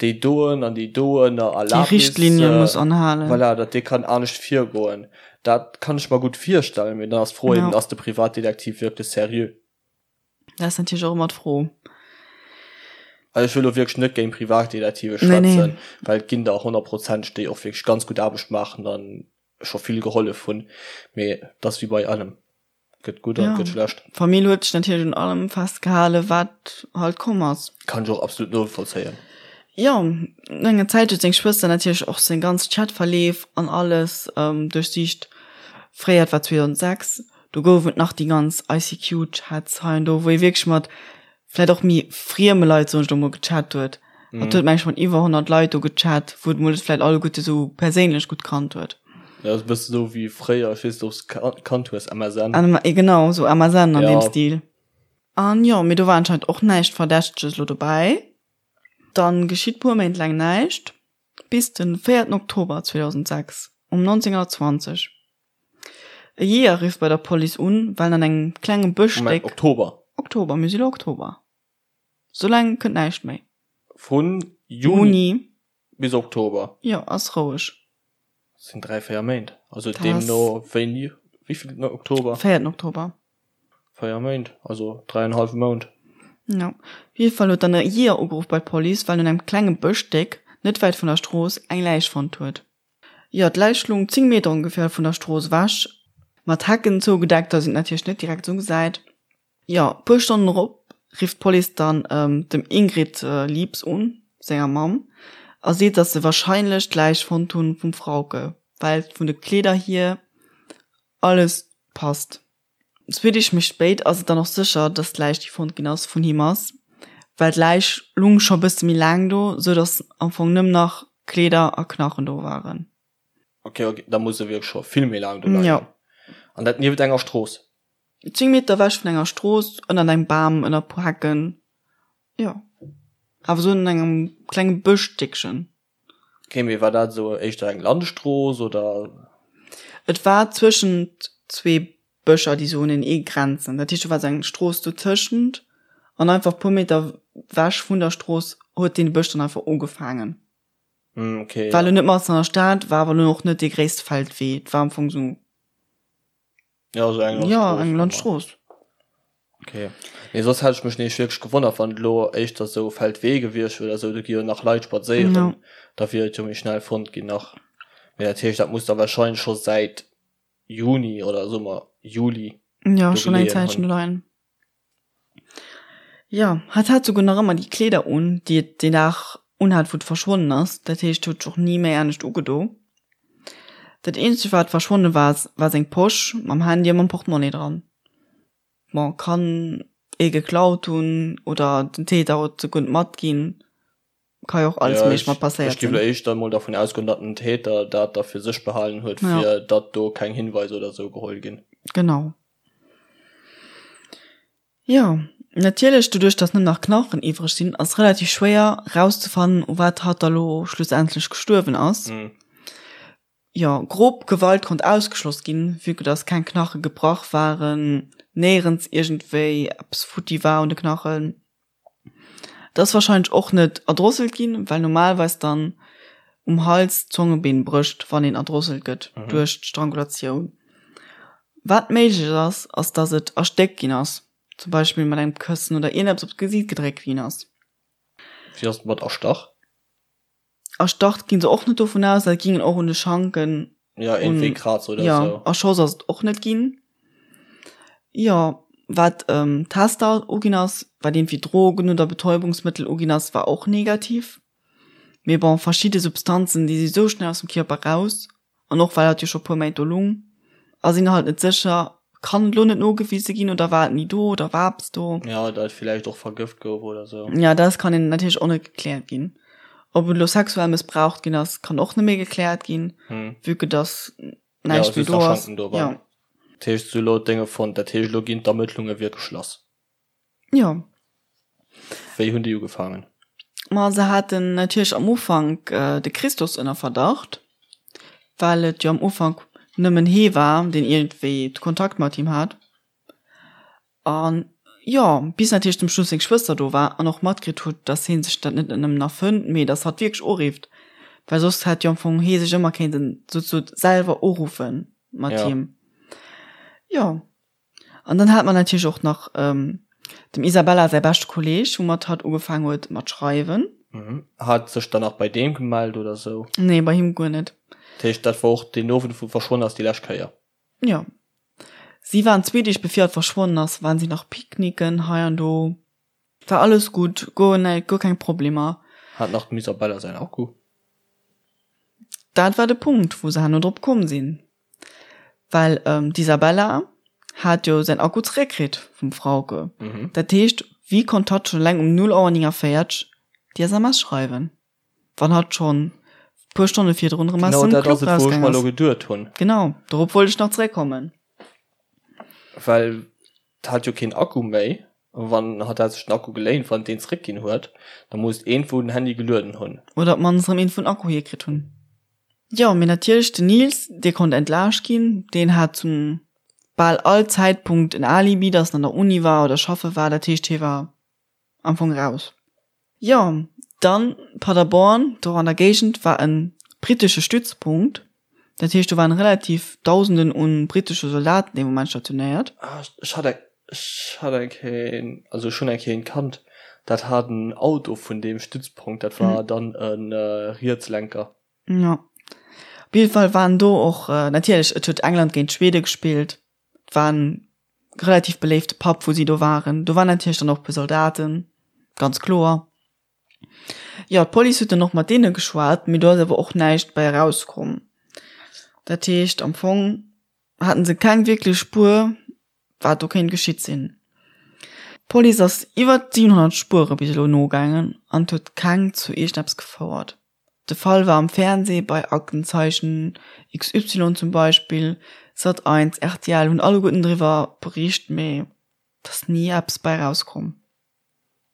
A: déi doen an déi doen a
B: Déi
A: Erlaabnis,
B: Richtlinie muss anhalen.
A: voilà, datt dee kann anescht virgoen. Dat kann ech mer gutt virstellen, mee dann ass d'Fro eben, ass de Privatdetektiv wierklech seriö?
B: Dat ass natierlech och ëmmer d'Fro.
A: Also ech wëll elo wierklech net géint Privatdetektive schwätzen, well et ginn der honnertprozenteg, déi och wierklech ganz gutt Aarbecht maachen a scho vill gehollef hunn, mee et ass wéi bei allem. Gëtt gutt an gëtt schlecht.
B: D'Famill huet sech natierlech un allem festgehalen, wat halt komm ass.
A: Kann ech och absolut novollzéien.
B: Jo, no enger Zäit huet seng Schwëster natierlech och seng ganz Chatverleef an alles duerchsicht. Fréier, et war 2006, do gouf et nach déi ganz ICQ-Chats hei an do, wou ee wierklech mat vläit och méi frieme Leit, soen ech elo mol, gechat huet. Hatt huet, meng ech, mat iwwer 100 Leit do gechat, wou et mol net vläit alleguerte sou perséinlech gutt kannt huet.
A: Ja, ass e bësse sou wéi fréier, ech weess net, ob s de kannt hues, MSN.
B: Genau, sou MSN an deem Stil. An jo, mee do war anscheinend och näischt Verdächteges elo dobäi. Dann geschitt puer Méint laang näischt, bis den véierten Oktober 2006 um 19:20. E Jeeër rifft bei der Police un, well en an engem klenge
A: Bëschstéck. Moment, Oktober?
B: Oktober, mir si lo Oktober. Soulaang kënnt näischt méi.
A: Vun Juni bis Oktober?
B: Jo, ass roueg.
A: Dat sinn 3, 4 Méint. Also deemno wéini, wéivillten Oktober?
B: Véierten Oktober.
A: 4 Méint, also dräienhallwe Mount.
B: Jo. Op jidde Fall huet dann e Jeeër ugeruff bei d'Police, well en an engem klenge Bëschstéck net wäit vun der Strooss eng Läich fonnt huet. Jo, d'Läich lung 10 Meter ongeféier vun der Strooss ewech, mat Hecken zougedeckt, dass een et natierlech net direkt esou gesäit. Jo, puer Stonnen drop rifft d'Police dann dem Ingrid Liebs un, senger Mamm, a seet, dass se warscheinlech d'Läich fonnt hunn vum Frauke, well vun de Kleeder hier alles passt. Zwee Deeg méi spéit ass et dann och sécher, dass d'Läich, déi fonnt ginn ass, vun him ass, well d'Läich lung scho bësse méi laang do, sou dass am Fong nëmmen nach Kleeder a Knachen do waren.
A: Ok, ok, da muss se wierklech scho vill méi laang do leien.
B: Jo.
A: An dat nieft enger Strooss?
B: 10 Meter ewech vun enger Strooss, ënnert engem Bam, ënner e puer Hecken, jo. Awer sou an engem klenge Bëschstéckchen.
A: Ok, mee war dat esou éischter eng Landstrooss oder?
B: Et war zwëschent zwee Bëscher, déi sou unenee grenzen. Dat heescht, do war sou eng Strooss dotëschent an einfach puer Meter wech vun der Strooss huet dee Bësch dann einfach ugefaangen.
A: Hm, ok,
B: War elo net matzen an der Stad, war awer elo och net dee gréisste Feldwee. Et war am Fong sou.
A: Ja, also eng
B: Landstrooss. Ja, eng Landstrooss.
A: Okay. Nee, soss hätt ech mech nämlech wierklech gewonnert, wann et elo éischter sou Feldwee gewiescht wier oder sou, do gi jo nach Leit spadséieren,
B: Ja.
A: da wier et jo méi schnell fonnt ginn nach. Mee dat heescht, dat muss da warscheinlech scho säit Juni oder soe mer Juli
B: Ja,
A: do
B: schon eng
A: geleeën
B: Zäitchen
A: hunn.
B: do leien. Jo, hatt hat souguer nach ëmmer déi Kleeder un, déi et deen Dag unhat, wou et verschwonnen ass. Dat heescht, huet sech och ni méi anescht ugedo. Dat eenzegt, wat verschwonne war, war seng Posch mam Handy a mam Portemonnaie dran. Bon, kann ee geklaut hunn oder den Täter huet se guer net matginn. Ka jo och alles
A: Ja,
B: méiglech
A: ech,
B: mat passéiert
A: ech géif
B: sinn.
A: elo éischter emol dervun ausgoen, datt den Täter dat da fir sech behalen huet,
B: Ja.
A: fir datt do keng Hinweiser oder sou geholl ginn.
B: Genau. Jo, natierlech, doduerch datt nëmmen nach Knachen iwwreg sinn, ass relativ schwéier rauszefannen, u wat hatt da lo schlussendlech gestuerwen ass. Jo, grob Gewalt konnt ausgeschloss ginn, vue que datt keng Knache gebrach waren. Néierens iergendwéi eppes futti war un de Knachen. Et ass warscheinlech och net erdrosselt ginn, well normalerweis dann um Hals d'Zongebeen brécht, wann een erdrosselt gëtt duerch d'Strangulatioun. Wat méiglech ass, ass dass et erstéckt ginn ass, zum Beispill mat engem Këssen oder iergendeppes op d'Gesiit gedréckt ginn ass.
A: Wéi ass et mat erstach?
B: Erstach ginn se och net dovun aus, dat gingen och un de Schanken.
A: Ja, iergendwéi Kraz oder
B: sou. Jo, erschoss ass et och net ginn. Jo, wat Tester uginn ass, wat iergendwéi Drogen oder Betäubungsmëttel uginn ass, war och negativ. Mee bon, verschidde Substanzen, déi si sou schnell aus dem Kierper raus, An och well hatt jo scho puer Méint do lung, ass een halt net sécher, kann et lo net nogewise ginn oder war et ni do oder war eppes do?
A: Jo, datt et villäicht och vergëft gouf oder sou.
B: Jo, dat kann een natierlech och net gekläert ginn. Ob et lo sexuell mëssbraucht ginn ass, kann och net méi gekläert ginn, vue que dass näischt méi do ass.
A: Jo. Dat heescht, se hu lo d'Dénge fonnt, dat heescht, elo ginn d'Ermëttlunge wierklech lass.
B: Jo.
A: Wéi hunn déi ugefaangen?
B: Ma se haten natierlech am Ufank de Christos ënner Verdacht, well et jo am Ufank nëmmen hee war, deen iergendwéi Kontakt mat him hat. An jo, bis natierlech zum Schluss seng Schwëster do war an och matkritt huet, datt hee sech dat net nëmmen erfënnt, mee datt hatt wierklech urifft, well soss hätt jo am Fong hee sech ëmmer kéinten souzesoe selwer uruffe mat him. Jo. An dann hat mer natierlech och nach dem Isabella säi beschte Kolleeg, woumat hatt ugefaang huet mat schreiwen.
A: Hat sech dann nach bei deem gemellt oder sou?
B: Nee, bei him guer net.
A: Dat heescht, dat war och deen Owend, wou verschwonn ass, déi lescht Kéier?
B: Jo. Si waren zwee Deeg bevir hatt verschwonnen ass, waren si nach picknicken hei an do. War alles gutt, guer näi, guer keng Problemer.
A: Hat nach dem Isabella säin Akku?
B: Dat war de Punkt, wou se herno drop komm sinn. Well d'Isabella hat jo säin Akku zeréckkritt vum Frauke. Dat heescht, wéi konnt hatt schonn eleng um 0 Auer 49 déi SMS schreiwen, wann hatt schonn puer Stonne virdrun erëm aus
A: dem
B: Club
A: rausgaang ass? Genau dat ass et, wou ech mer elo
B: geduet hunn. Genau, dorop wollt ech nach zeréckkommen.
A: Well hat jo keen Akku méi, wann hatt hat sech den Akku geléint, wann deen zeréckginn huet, da muss iergendwou den Handy gelueden hunn.
B: Oder op d'mannst erëm een vun Akku hierkritt hunn. Jo, mee natierlech den Nils, dee konnt entlaascht ginn. Deen hat zum bal all Zäitpunkt en Alibi, dass en an der Uni war oder schaffe war. Dat heescht, hie war am Fong raus. Jo, dann Paderborn, do an der Géigend war e brittesche Stützpunkt. Dat heescht, do waren relativ Dausenden un brittesche Soldaten dee Moment stationéiert.
A: Ah, ech hat eng, ech hat eng Kéier, also ech hunn eng Kéier een kannt, dat hat en Auto vun deem Stützpunkt, dat war dann e Rietslenker.
B: Jo, op jidde Fall waren do och, natierlech, et huet England géint Schwede gespillt, et war en relativ beléifte Pub, wou si do waren. Do waren natierlech dann och e puer Soldaten, ganz kloer. Jo, d'Police huet dann och mat deene geschwat, mee do ass awer och näischt bei erauskomm. Dat heescht, am Fong haten se keng wierklech Spuer, wat do kéint geschitt sinn. D'Police ass iwwer 700 Spuere bis elo nogaangen an et huet keng zu iergendeppes gefouert. De Fall war am Fernsee bei Aktenzeichen XY zum Beispill, Sat 1, rtl hunn alleguerten driwwer bericht, mee et ass ni eppes bei erauskomm.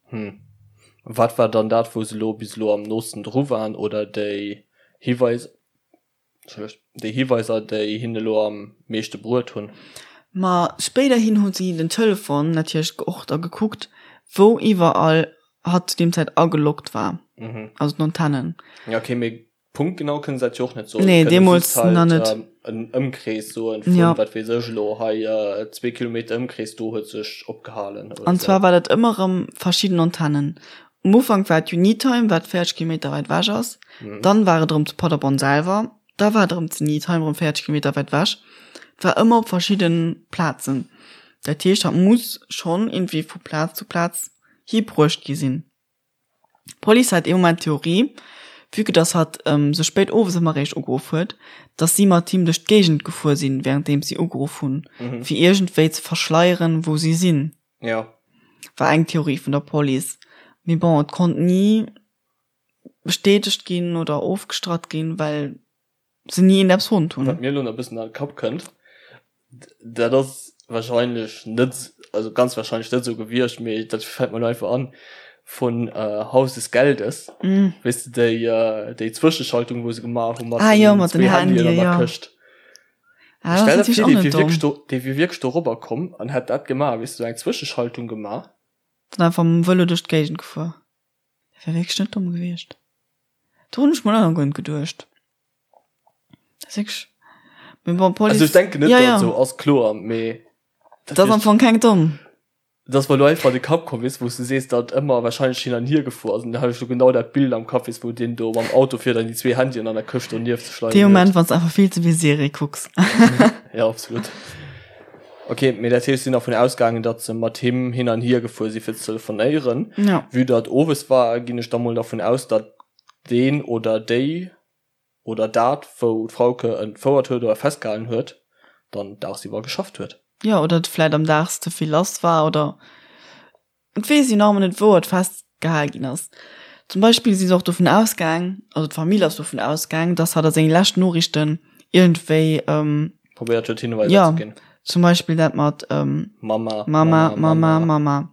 A: Hm. Wat war dann dat, wou se elo bis elo am noosten dru waren oder déi Hiweiser, Entschëllegt, déi Hiweiser, déi hinne elo am meeschte bruet hunn?
B: Ma spéiderhin hu si den Telefon natierlech och da gekuckt, wou iwwerall hatt zu deem Zäit ageloggt war, also d'Antennen.
A: Ja, okay, mee punktgenau kënne se dat jo och net soen.
B: Nee, deemools nach net.
A: En Ëmkrees soen vun, wat weess ech elo, hei zwee Kilometer Ëmkrees, do huet sech opgehalen
B: oder esou. An zwar war dat ëmmer erëm verschidden Antennen. Um Ufank war et Unitime, wat 40 Kilometer wäit ewech ass. Dann war et erëm zu Paderborn selwer. Da war et erëm zu Unitime, erëm 40 Kilometer wäit ewech. Et war ëmmer op verschidde Plazen. Dat heescht, hatt muss schonn iergendwéi vu Plaz zu Plaz hibruecht gi sinn. D'Police hat ee Moment d'Theorie, vue que dass hatt sou spéit owes ëmmer eréischt ugeruff huet, dass si mat him duerch d'Géigend gefuer sinn, wärenddeems si ugeruff hunn, fir iergendwéi ze verschleieren, wou si sinn.
A: Jo.
B: War eng Theorie vun der Police. Mee bon, et konnt ni bestätegt ginn oder ofgestratt ginn, well se ni een eppes fonnt hunn.
A: Wat mir elo nach e bëssen an de Kapp kënnt, dat ass wahrscheinlech net, also ganz wahrscheinlech net esou gewiescht, mee dat fält mer elo einfach an, vun Haus des Geldes, weess de, déi, déi Zwëscheschaltung, wou se gemaach hu mat
B: den zwee Handyen an der Këscht. Ah, das
A: Stell
B: ass
A: der
B: natierlech
A: vir,
B: och
A: dee
B: net
A: wier
B: domm.
A: wierklech do, dee wier wierklech do robber komm an hätt dat gemaach, weess de, sou eng Zwëscheschaltung gemaach.
B: Dann einfach mam Vëlo duerch d'Géigend gefuer. Dat wär wierklech net domm gewiescht. Do hunn ech mol och nach guer net geduecht. Dat ass wierklech, mee bon,
A: Also
B: d'Police,
A: ech denken net,
B: ja,
A: datt et
B: ja.
A: esou ass, kloer, mee dat
B: Dat ass
A: wier
B: am Fong keng domm.
A: Et ass mer elo einfach an de Kapp komm, weess de, wou s de sees, datt ëmmer wahrscheinlech hin an hier gefuer ass. An da hat ech elo genau dat Bild am Kapp, weess, wou deen do mam Auto fiert an déi zwee Handyen an der Këscht do nieft sech leien
B: Dee
A: huet.
B: Moment, wann s de einfach vill ze vill Serie kucks.
A: Jo, absolut. Ok, mee dat heescht, si sinn dervun ausgaangen, datt se mat him hin an hier gefuer si fir ze telefonéieren.
B: Jo.
A: Vue datt owes war, ginn ech da mol dervun aus, datt deen oder déi oder dat, wou d'Frauke entfouert huet oder festgehalen huet, dann dagsiwwer geschafft huet.
B: Jo, oder et vläit am Daags ze vill lass war oder et weess een nach ëmmer net, wou et festgehal ginn ass. Zum Beispill si se och dovun ausgaang, also d'Famill ass dovun ausgaang, dass hatt a senge leschten Noriichten iergendwéi,
A: Probéiert huet, Hinweiser
B: jo,
A: ze ginn.
B: zum Beispill dat mat
A: Mama,
B: Mama, Mama, Mama.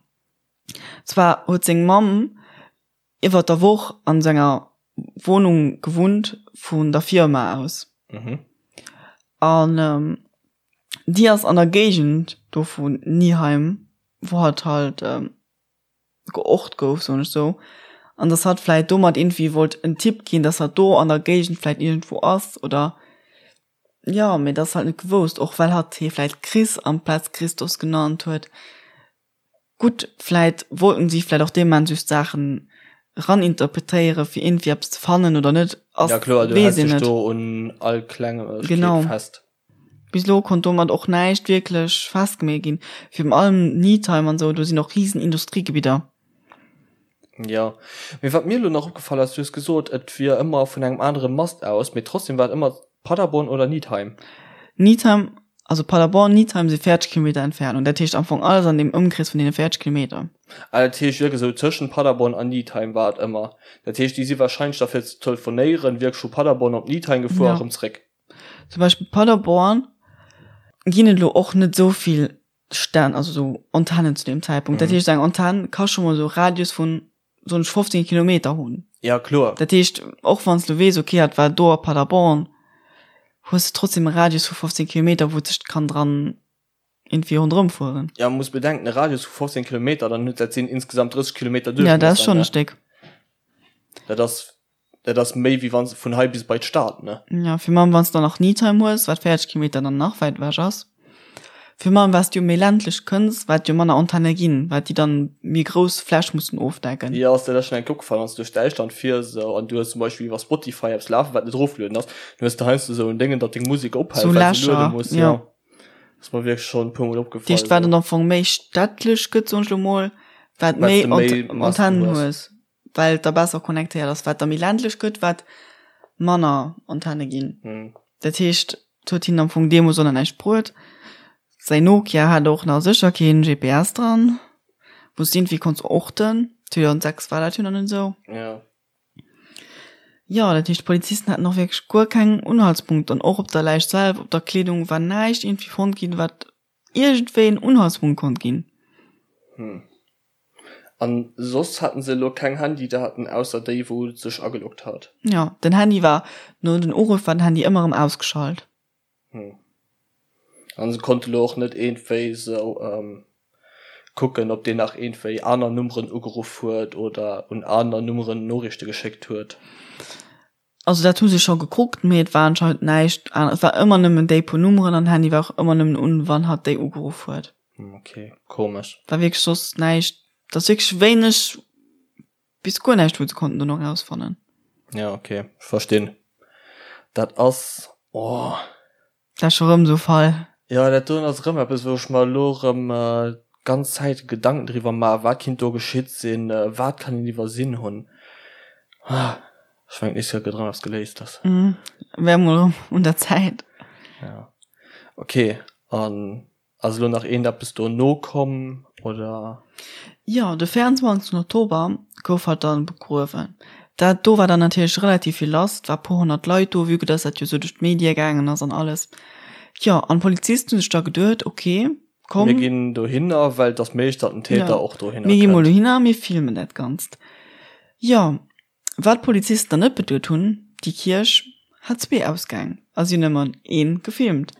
B: Zwar huet seng Mamm iwwert der Woch an senger Wohnung gewunnt vun der Firma aus.
A: Mhm.
B: An ähm, déi ass an der Géigend do vun Nieheim, wou hatt halt ähm, geort gouf, soen ech sou. An dass hatt vläit domat irgendwie wollt en Tipp ginn, dass hatt do an der Géigend vläit iergendwou ass oder jo, mee dat ass halt net gewousst, och well hatt hie vläit Chris amplaz Christos genannt huet. Gutt, vläit wollten si vläit och dee Moment just Saachen eraninterpretéiere fir iergendwéi eppes ze fannen oder net, ass,
A: Ja kloer, du
B: weess
A: häls
B: een
A: dech
B: net.
A: do un all Klengegkeet
B: Genau.
A: fest.
B: Bis elo konnt domat och näischt wierklech festgemeet ginn. Virun allem Niedheim an esou, do sinn och risen Industriegebidder.
A: Jo, mee wat mir elo nach opgefall ass, du hues gesot, et wier ëmmer vun engem anere Mast aus, mee trotzdem war et ëmmer Paderborn oder Niedheim.
B: Niedheim, also Paderborn, Niedheim si 40 Kilometer Entfernung, dat heescht am Fong alles an deem Ëmkrees vun deene 40 Kilometer.
A: Ah, dat heescht wierklech esou tëschent Paderborn an Niedheim war et ëmmer. Dat heescht, déi si wahrscheinlech da fir ze telefonéieren wierklech vu Paderborn op Niedheim gefuer a
B: Ja.
A: rëm zréck.
B: Zum Beispill Paderborn ginn et elo och net esou vill Stänn, also esou Antennen zu deem Zäitpunkt. Dat heescht, eng Antenn ka scho mol esou e Radius vun, soen ech, 15 Kilometer hunn.
A: Ja, kloer.
B: Dat heescht, och wann s de weess, okay, dat war do a Paderborn, hues de trotzdem e Radius vu 15 Kilometer, wou et sech kann dran iergendwéi ronderëm fueren.
A: Ja, muss bedenken, e Radius vu 15 Kilometer, dann huet dat sinn insgesamt 30 Kilometer
B: Ja, dat ass
A: Duerchmiesser,
B: schonn e
A: ne?
B: Stéck.
A: Dat ass, dat ass méi wéi wann s de vun hei bis bei d'Stad, ne?
B: Ja, virun allem wann s de dann nach Niedheim hues, wat 40 Kilometer dann nach wäit ewech ass. Virun allem wat s du jo méi ländlech kënns, wat jo manner Antenne ginn, wat déi dann méi grouss Fläch mussen ofdecken.
A: Jo, ass der dat schonn eng Kéier opgefall, wann s du duerch Däitschland fiers esou an du hues zum Beispill iwwer Spotify eppes lafen, wat net erofgelueden ass, dann hues de heiansdo esou en Déngen, datt deng Musek ophält,
B: Sou
A: well se luede
B: Lächer,
A: muss,
B: jo.
A: jo. Ass mer wierklech schonn e puer Mol opgefall.
B: Dat heescht, wat dann am Fong méi städtlech gëtt, soen ech elo mol, wat
A: Wat s
B: méi
A: de méi Masten
B: Antennen
A: hues.
B: hues. Well et da besser connectéiert ass. Wat da méi ländlech gëtt, wat manner Antenne ginn.
A: Mhm.
B: Dat heescht, et huet hinnen am Fong deemools och nach näischt bruet. Säin Nokia hat och nach sécher keen GPS dran, wou s de iergendwéi konns orten. 2006 war dat jo nach net esou.
A: Ja.
B: Jo, dat heescht, d'Polizisten haten och wierklech guer keng Unhaltspunkte. An och op der Läich selwer, op der Kleedung war näischt iergendwéi fonnt ginn, wat iergendwéi en Unhaltspunkt konnt ginn.
A: Hm. An soss haten se elo keng Handydaten ausser déi wou sech ageloggt hat?
B: Jo, den Handy war, no den Uruff war den Handy ëmmer erëm ausgeschalt.
A: Hm. An se konnte lo och net iergendwéi sou kucken ob deen nach iergendwéi aner Nummeren ugeruff huet oder un aner Nummeren Noriichte geschéckt huet?
B: Also dat hu se scho gekuckt, mee et war anscheinend näischt aner. Et war ëmmer nëmmen déi puer Nummeren an den Handy war och ëmmer nëmmen un, wann hatt déi ugeruff huet.
A: Ok, komesch.
B: War wierklech soss näischt. Et ass wierklech wéineg bis guer näischt, wou se konnten dono erausfannen.
A: Ja, ok, ech verstinn. Dat ass, oh.
B: Dat ass scho rëm esou e Fall.
A: Jo, dat doen ass erëm eppes, wou ech mer elo erëm d'ganz Zäit Gedanken driwwer maachen, wat kinnt do geschitt sinn, wat kann een iwwersinn hunn. Ech mengen, d'nächst Kéier gëtt erëm eppes geléist. Ass.
B: Wär mol erëm un der Zäit.
A: Ja. Ok, an Ass elo nach eent eppes dono komm, oder?
B: Jo, de 24 Oktober gouf hatt dann begruewen. Dat do war dann natierlech relativ vill lass, et war puer 100 Leit do, vue que dass dat jo sou duerch d'Medie gaangen ass an alles. Jo, an d'Polizisten hu sech da geduet, ok,
A: komm. Mir ginn dohinner, well et ass méiglech, datt den Täter och dohinner
B: kënnt. Mir gi mol dohinner, mir filmen dat Ganzt. Jo, Wat d'Polizisten dann net beduet hunn, déi Kierch hat zwee Ausgäng a si hunn ëmmer een gefilmt.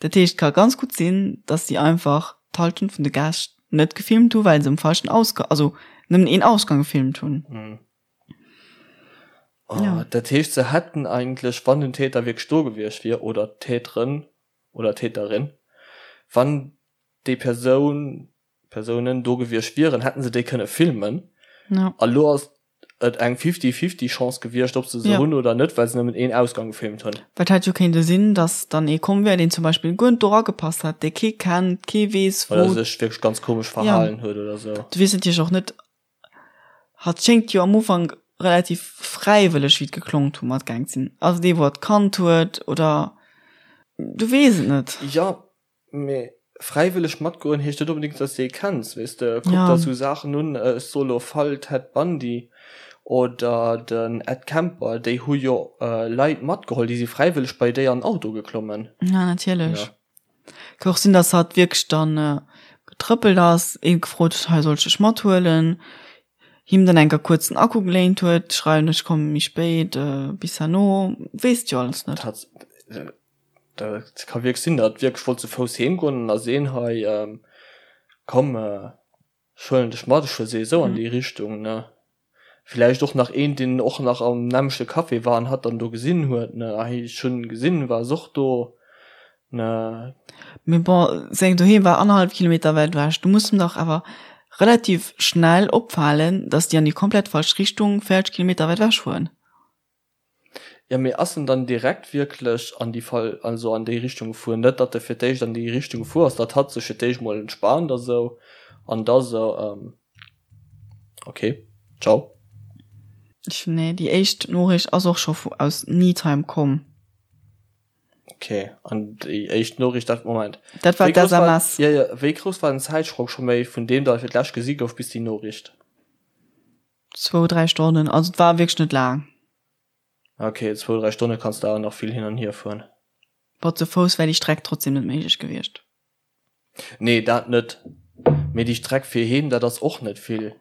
B: Dat heescht, et ka ganz gutt sinn, dass si einfach d'Halschent vun de Gäscht net gefilmt hu well se um falschen Ausgang, also nëmmen een Ausgang gefilmt hunn.
A: Oh, ja. Dat heescht, se hätten eigentlech, wann den Täter wierklech do gewiescht wier, oder d'Täterin oder Täterin, wann déi Persoun, Persounen do gewiescht wieren, hätten se déi kënne filmen.
B: Ja.
A: A lo ass et eng fifty-fifty Chance gewiescht, ob se se
B: Ja.
A: hunn oder net, well se nëmmen een Ausgang gefilmt hunn.
B: Well et hätt jo kéinte sinn, dass dann ee komm wär, deen zum Beispill guer net do eragepasst hätt, dee kee kennt, kee weess,
A: Oder
B: wou.
A: sech wierklech ganz komesch
B: Ja.
A: verhalen huet oder sou.
B: Du weess natierlech och net, Hatt schéngt jo am Ufank relativ fräiwëlleg, wéi et geklongt hu, matgaang ze sinn. Ass et ee, wou hatt kannt huet oder du weess et net.
A: Jo, mee fräiwëlleg matgoen heescht net onbedéngt, dass de ee kenns, weess de. Kuck
B: Ja.
A: der esou Saachen un, ech soe lo Fall Ted Bundy oder den Ed Kemper, déi hu jo Leit matgeholl, déi si fräiwëlleg bei déi an den Auto geklommen.
B: Ja, natierlech.
A: Ja.
B: Ka och sinn, dass hatt wierklech dann getrëppelt ass, ee gefrot huet, hei soll ech dech mathuelen, him dann enker kuerz den Akku geléint huet, schreiwen ech komme méi spéit, bis herno, weess et jo alles net.
A: Dat dat ka wierklech sinn, datt wierklech wollt zu Fouss heem goen an da seen, hei komm, Ech huelen dech mat, ech fuer souwisou an déi Richtung, ne? Villäicht och nach een, deen och nach am nämmlechte Café war an hatt dann do gesinn huet, ne? Ah, ech hunn gesinn, war ass och do, ne?
B: Mee bon, seng Doheem war annerhallef Kilometer wäit ewech. Du muss em dach awer relativ schnell opfalen, dass déi an déi komplett falsch Richtung 40 Kilometer wäit ewech fueren.
A: Jo, mee ass en dann direkt wierklech an déi Fall, also an déi Richtung gefuer? Net datt e fir d'éischt an déi Richtung gefuer ass, datt hatt sech fir d'éischt mol entspaant a sou an da sou, ok, ciao.
B: Ech, nee, déi éischt Noriicht ass och scho vu aus Needheim komm.
A: Ok, an déi éischt Noriicht, dat, Moment.
B: Dat war
A: Wéi grouss war,
B: d'SMS.
A: jo, jo, wéi grouss war den Zäitsprong scho méi vun deem, datt e fir d'lescht gesi gouf, bis déi Noriicht?
B: Zwou, dräi Stonnen, also et war wierklech net laang.
A: Ok, zwou, dräi Stonne kanns de awer nach vill hin an hier fueren.
B: Bon, zu Fouss wär déi Streck trotzdem net méiglech gewiescht.
A: Nee, dat net. Mee déi Streck fir heem, dat ass och net vill.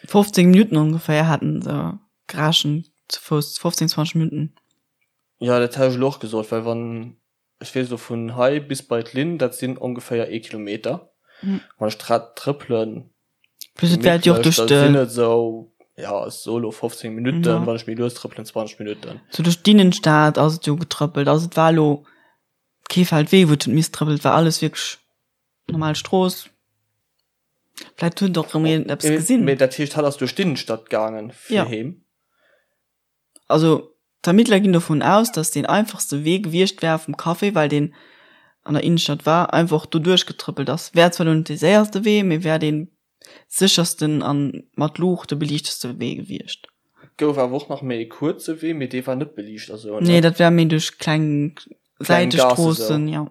B: 15 Minutten ongeféier haten se gerechent, zu Fouss 15, 20 Minutten.
A: Jo, dat hat ech elo och gesot, well wann Ech weess elo vun hei bis bei d'Linn, dat sinn ongeféier ee Kilometer. Wann ech d'Rad trëppelen,
B: Plus et wäert jo och
A: gemittlech,
B: duerch
A: da
B: de.
A: sinn et esou, ja, ech soe elo 15 Minutten,
B: Ja.
A: wann ech méi lues trëppelen, 20 Minutten.
B: Sou duerch d'Innenstad ass et jo getrëppelt. Also et war elo kee Feldwee, wou et huet misst trëppelen, et war alles wierklech normal Strooss. Vläicht huet och erëm een eppes gesinn.
A: Mee dat heescht, hatt ass duerch d'Innenstad gaangen fir
B: Ja.
A: heem?
B: Also d'Ermittler ginn dovun aus, datt deen einfachste Wee gewiescht wär vum Café, well deen an der Innenstadt war, einfach doduerch getrëppelt ass. Wär zwar lo net dee séierste Wee, mee wär dee séchersten a mat Luuchte beliichteste Wee gewiescht.
A: Et gouf awer och nach méi e kuerze Wee, mee dee war net beliicht a sou, ne?
B: Nee, dat wär méi duerch kleng
A: Kleng Gaasse sou.
B: Säitestroossen, jo.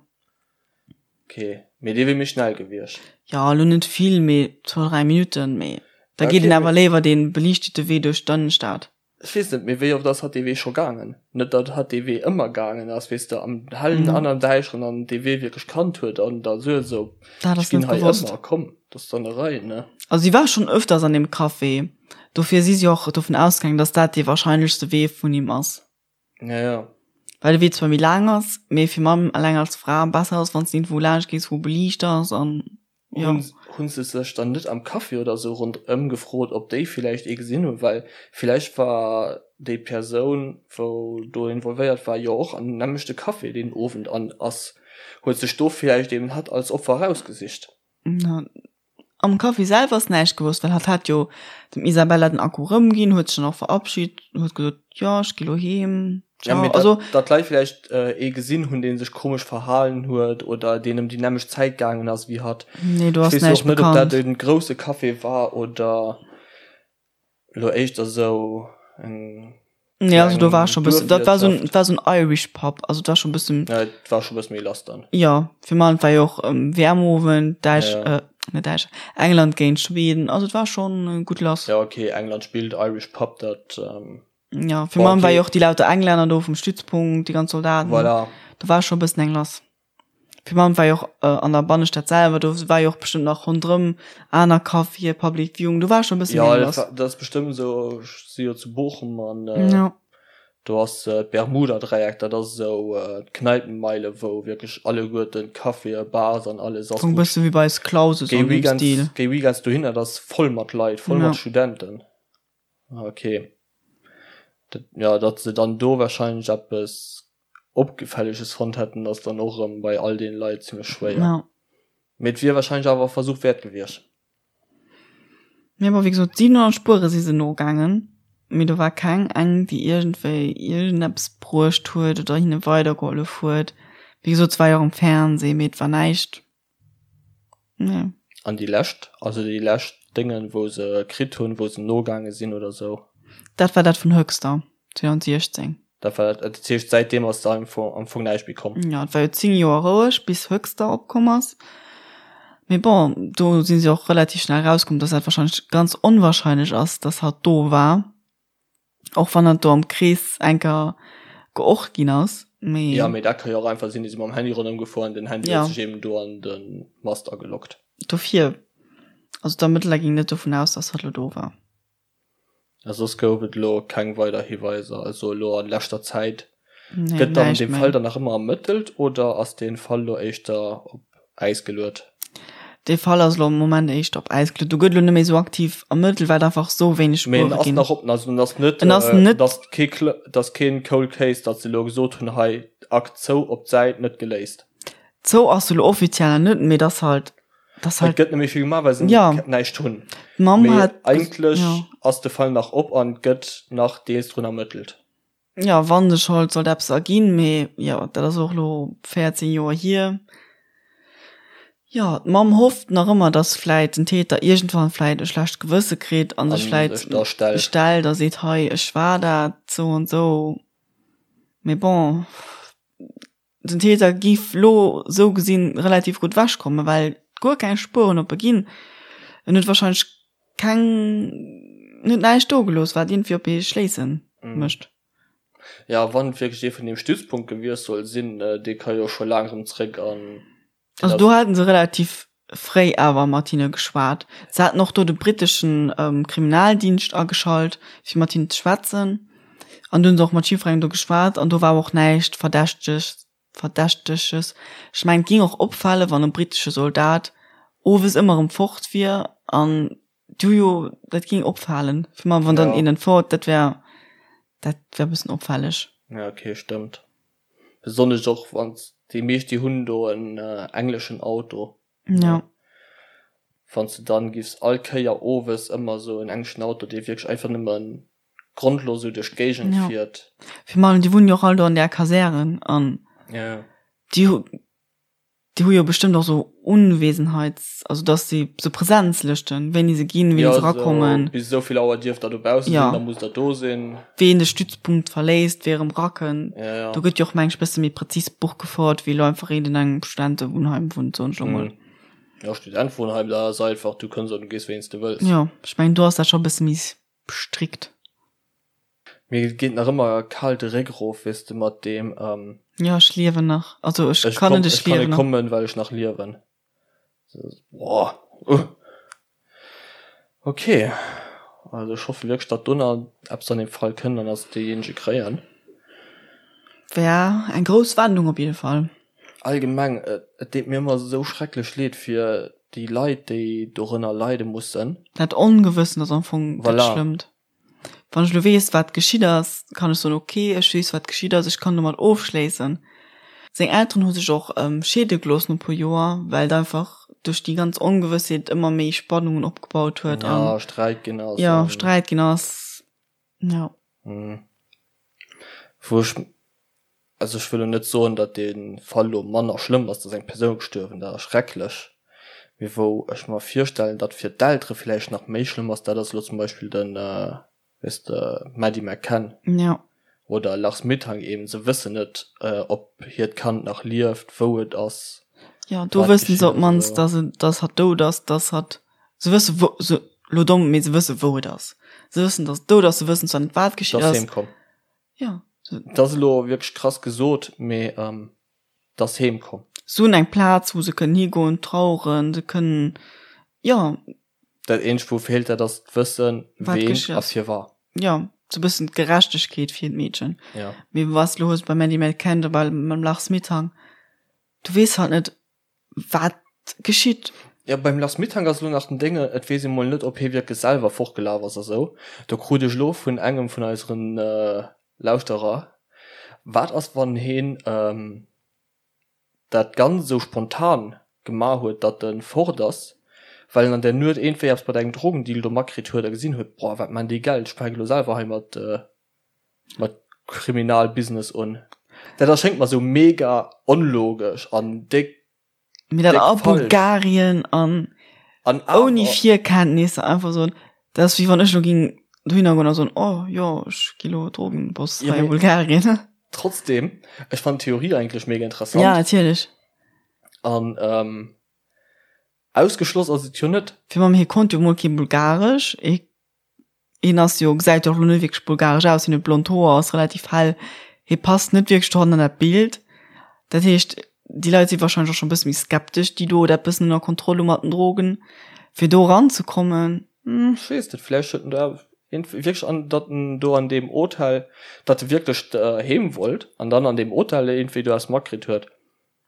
A: Ok, mee dee wier méi schnell gewiescht.
B: Jo, elo net vill, mee zwou, dräi Minutten, mee da geet
A: Okay,
B: een awer
A: mee
B: léiwer dee beliichtete Wee duerch d'Ënnenstad.
A: Ech weess net, mee wéi oft ass hatt dee Wee scho gaangen? Net datt hatt dee Wee ëmmer gaangen ass, weess de, am Hellen an am Däischteren an dee Wee wierklech kannt huet an da sou esou,
B: Dat
A: ech
B: ass
A: ginn
B: net
A: hei
B: gewosst.
A: ëmmer, komm, dat ass dann e Rei, ne?
B: Also si war schonn ëfters an deem Café, dofir si si och dovun ausgaangen, datt dat dee warscheinlechste Wee vun him ass.
A: Ja, ja.
B: Well de Wee zwar méi laang ass, mee fir Mamm eleng als Fra besser ass, wann s de iergendwou laanscht gees, wou beliicht ass an jo.
A: Hunn, hunn se sech dann net am Café oder sou ronderëm gefrot, ob déi villäicht ee gesinn hunn? Well villäicht war déi Persoun, wou do involvéiert war, jo och an nämmlechte Café deen Owend an ass, huet sech do villäicht eben hatt als Opfer erausgesicht.
B: Am Café selwer ass näischt gewosst, well hatt hat jo dem Isabella den Akku rëmginn, huet sech dann och verabschit, huet gesot, jo, ech gi lo heem,
A: Ja,
B: ciao.
A: mee
B: Also.
A: datt, datt d'Leit villäicht ee gesinn hunn, dee sech komesch verhalen huet oder deen ëm déi nämmlecht Zäit gaangen ass wéi hatt.
B: Nee, do
A: Ech
B: ass
A: weess jo
B: näischt
A: och net, ob dat
B: bekannt.
A: e grousse Café war oder elo éischter sou eng
B: Nee, also do war
A: kleng
B: scho bëssen, dat war sou en,
A: Duerfwirtschaft.
B: et war sou en Irish Pub, also et war scho bëssen.
A: Ja, et war scho bësse méi lass dann.
B: Jo, fir man, et war jo och WM-Owend, Däitsch,
A: Ja, ja.
B: net Däitsch, England géint Schweden, also et war schonn gutt lass.
A: Ja, okay, England spillt, Irish Pub, dat.
B: Ja, fir
A: Bon,
B: man war
A: okay.
B: jo och déi lauter Englänner do vum Stützpunkt, déi ganz Soldaten.
A: Voilà.
B: Do war scho bëssen eng lass. Fir man war jo och an der Bannestad selwer, do war jo och bestëmmt nach ronderëm aner Caféë, Public Viewing, do war scho bëssen
A: Ja,
B: méi
A: dat
B: lass.
A: war, dat ass bestëmmt esou, ech si jo zu Bochum an
B: Ja.
A: Do ass d'Bermuda-Dräieck, dat ass esou d'Kneipenmeile, wou wierklech alleguerten d'Caféë, Bars an alles
B: ass. E bësse wéi bei eis Clauses
A: an deem Stil. Géi weekends dohinner, dat ass voll mat Leit, voll mat Studenten. Ok. Dat, jo, datt se dann do warscheinlech eppes Opgefälleges fonnt hätten, ass dann och erëm bei all deene Leit zimmlech schwéier. Mee et wier warscheinlech awer e Versuch wäert gewiescht.
B: Mee bon, wéi gesot, 700 Spuere si se nogaangen, mee do war keng eng, déi iergendwéi iergendeppes bruecht huet oder hinne weidergehollef huet. Wéi gesot, et war jo och am Fernseh, mee et war näischt, nee.
A: An déi lescht, also déi lescht Déngen, wou se kritt hunn, wou se nogaange sinn oder sou?
B: Dat war dat vun Höxter 2016.
A: Dat war dat, dat heescht säitdeem ass da am Fong näischt méi komm?
B: Jo, et war jo 10 Joer roueg bis Höxter opkomm ass. Mee bon, do si se och relativ schnell erauskomm, dass dat wahrscheinlech ganz onwahrscheinlech ass, dass hatt do war. Och wann hatt do am Krees enker geort ginn ass,
A: mee. Jo, mee dat ka jo och einfach sinn, déi si mam Handy ronderëm gefuer an den Handy huet sech eben do an de Mast ageloggt.
B: Dofir, also d'Ermëttler ginn net dovun aus, dass hatt lo do war.
A: A soss gouf et elo keng weider Hiweiser, also elo an leschter Zäit. Nee, Gëtt dann dee Fall dann nach ëmmer ermëttelt oder ass dee Fall elo éischter op Äis geluet?
B: Dee Fall ass elo am Moment éischter op Äis geluet. Do gëtt elo net méi esou aktiv ermëttelt, well et einfach esou wéineg
A: Spuere ginn. Mee en ass nach op, also en ass net, en ass net, et ass kee, et ass keen Cold Case, datt se elo gesot hunn, hei Akt zou, op d'Säit, net geléist.
B: Zou ass se elo offiziell nach net, mee et ass halt
A: Das halt, Et gëtt net méi vill gemaach, well se ja. näischt hunn. D'Mamm Mee hat eigentlech ja. ass de Fall nach op an gëtt nach deels drun ermëttelt.
B: Ja, wann sech halt sollt eppes erginn, mee jo, dat ass och lo 14 Joer hier. Jo, d'Mamm hofft nach ëmmer, dass vläit den Täter iergendwann vläit e schlecht Gewësse kritt an sech vläit stellt. stellt a seet, hei, ech war dat, sou an sou. Mee bon. Den Täter giff lo sou gesinn relativ gutt ewech kommen, well guer keng Spueren op e ginn. En huet wahrscheinlech keng, en huet näischt do gelooss, wat iergendwéi op ee schléissen mécht.
A: Jo, wann et wierklech ee vun deem Stützpunkt gewiescht soll sinn, dee ka jo scho laang erëm zréck an
B: deen Also do haten se relativ fréi awer mat hinne geschwat. Se haten och do de britteschen Kriminaldienscht ageschalt, fir mat hinnen ze schwätzen. An do hunn se och mat jiddwerengem do geschwat an do war och näischt Verdächteges. Verdächteges. Ech mengen, et géing och opfalen, wann e brittesche Soldat owes ëmmer erëm fort wier an du jo, dat géing opfalen. Fir mer, wann dann een entfort, dat wär, dat wär e bëssen opfälleg.
A: Ja, okay, stëmmt. Besonnesch och wann déi meescht déi hunn do en engleschen Auto.
B: Ja.
A: Wann s de dann giffs all Kéier owes ëmmer esou en engleschen Auto dee wierklech einfach nëmmen grondlos esou duerch d'Géigend
B: ja.
A: fiert.
B: Virun allem déi wunnen jo och all do an där Kasären an
A: ja.
B: déi hu Déi hu jo bestëmmt och sou Unwesenheits-, also dass si sou Präsenzlëschten, wéini se ginn, wéini se erakommen.
A: Jo, bis esou vill Auer dierft der dobausse sinn, da musst der do sinn.
B: Ween de Stützpunkt verléisst, wee erëm erakënnt. Do gëtt jo och, meng ech, bësse méi prezis Buch gefouert, wéi elo einfach een, deen an engem Studentewunnheim wunnt, soen ech elo mol.
A: Jo, Studentewunnheim, dat ass einfach, du kënns an du gees, wéini s de wëlls.
B: Jo, ech mengen, do ass dat scho e bësse méi strikt.
A: Mir geet nach ëmmer kal de Réck erof, weess de, mat deem.
B: Jo, ech liewen nach. Also ech kann net,
A: ech liewen nach. Ech kann net kommen, well ech nach liewen. Boah. Ok. Also ech hoffe wierklech, datt do nach eppes an deem Fall kënnt an datt se deejéinege kréien.
B: Wär eng grouss Wendung op jidde Fall.
A: Allgemeng, et deet mir ëmmer esou schrecklech leed fir déi Leit, déi dorënner leide mussen.
B: Dat Ongewëssen ass am Fong dat Schlëmmt. Wann ech elo weess, wat geschitt ass, kann ech soen, ok, ech weess, wat geschitt ass, ech kann domat ofschléissen. Seng Elteren hu sech och scheede gelooss no e puer Joer, well et einfach duerch déi ganz Ongewëssheet ëmmer méi Spannungen opgebaut huet
A: an ja, Sträit ginn ass.
B: Jo, Sträit ginn ass, jo.
A: Wou ech, also ech wëll elo net soen, datt dee Fall elo manner schlëmm ass, datt eng Persoun gestuerwen, dat ass schrecklech, mee wou ech mer virstellen, datt fir d'Eltere villäicht nach méi schlëmm ass, dat ass elo zum Beispill de, weess de, Maddie McCann
B: Ja.
A: oder Lars Mittank eben, se wëssen net, ob hiert Kand nach lieft, wou et ass,
B: Jo, do wat wëssen se geschitt op ass d'mannst, oder. datt et, datt hatt dout ass, datt hatt, se wësse wou, se, elo domm, mee se wësse wou et ass. Se wëssen, datt et dout ass, se wëssen zwar net wat geschitt
A: Datt ass. heem komm.
B: Jo.
A: Dat ass elo wierklech krass gesot, mee 't ass heem komm.
B: Se hunn eng Plaz, wou se kënnen higoen, traueren, se kënnen, jo.
A: Dat eenzegt, wou feelt, dat ass d'Wëssen, ween a firwat.
B: Jo. Sou bëssen d'Gerechtegkeet fir d'Meedchen. Ja. Mee was lo hues bei Maddie McCann oder bei mam Lars Mittank, du weess halt net, wat geschitt.
A: Ja, beim Lars Mittank ass elo nach den Dénge, et weess ee mol net, ob hie wierklech selwer fortgelaf ass a sou. Do krut ech elo vun engem vun eiseren Lauschterer, wat ass wann heen dat Ganzt esou spontan gemaach huet, datt e fort ass, well en an där Nuet iergendwéi eppes mat engem Drogendeal do matkritt huet a gesinn huet, boah, wat maan déi Geld, ech fänke lo selwer hei mat mat Kriminalbusiness un. Dat erschéngt mer esou mega onlogesch an déck,
B: Mee dat a Bulgarien an An ouni Virkenntnisser einfach soen, dat ass wéi wann ech lo ging dohinner goen a soen, oh jo, ech gi lo Drogenboss hei a Bulgarien.
A: Trotzdem, ech fannen d'Theorie eigentlech mega interessant.
B: Ja, natierlech.
A: An ähm, ausgeschloss ass et jo net.
B: Fir mam hie konnt jo mol kee Bulgaresch, hie Hien ass jo, gesäit jo och lo net wierklech bulgaresch aus, hien huet blond Hoer, ass relativ hell, hie passt net wierklech dohannen an dat Bild. Dat heescht, déi Leit si warscheinlech och scho e bësse méi skeptesch, déi do dat bëssen ënner Kontroll hu mat den Drogen, fir do eranzekommen.
A: Ech weess net, vläicht huet en da wierklech an, datt en do an deem Hotel, datt e wierklech heem wollt an dann an deem Hotel iergendwéi do eppes matkritt huet.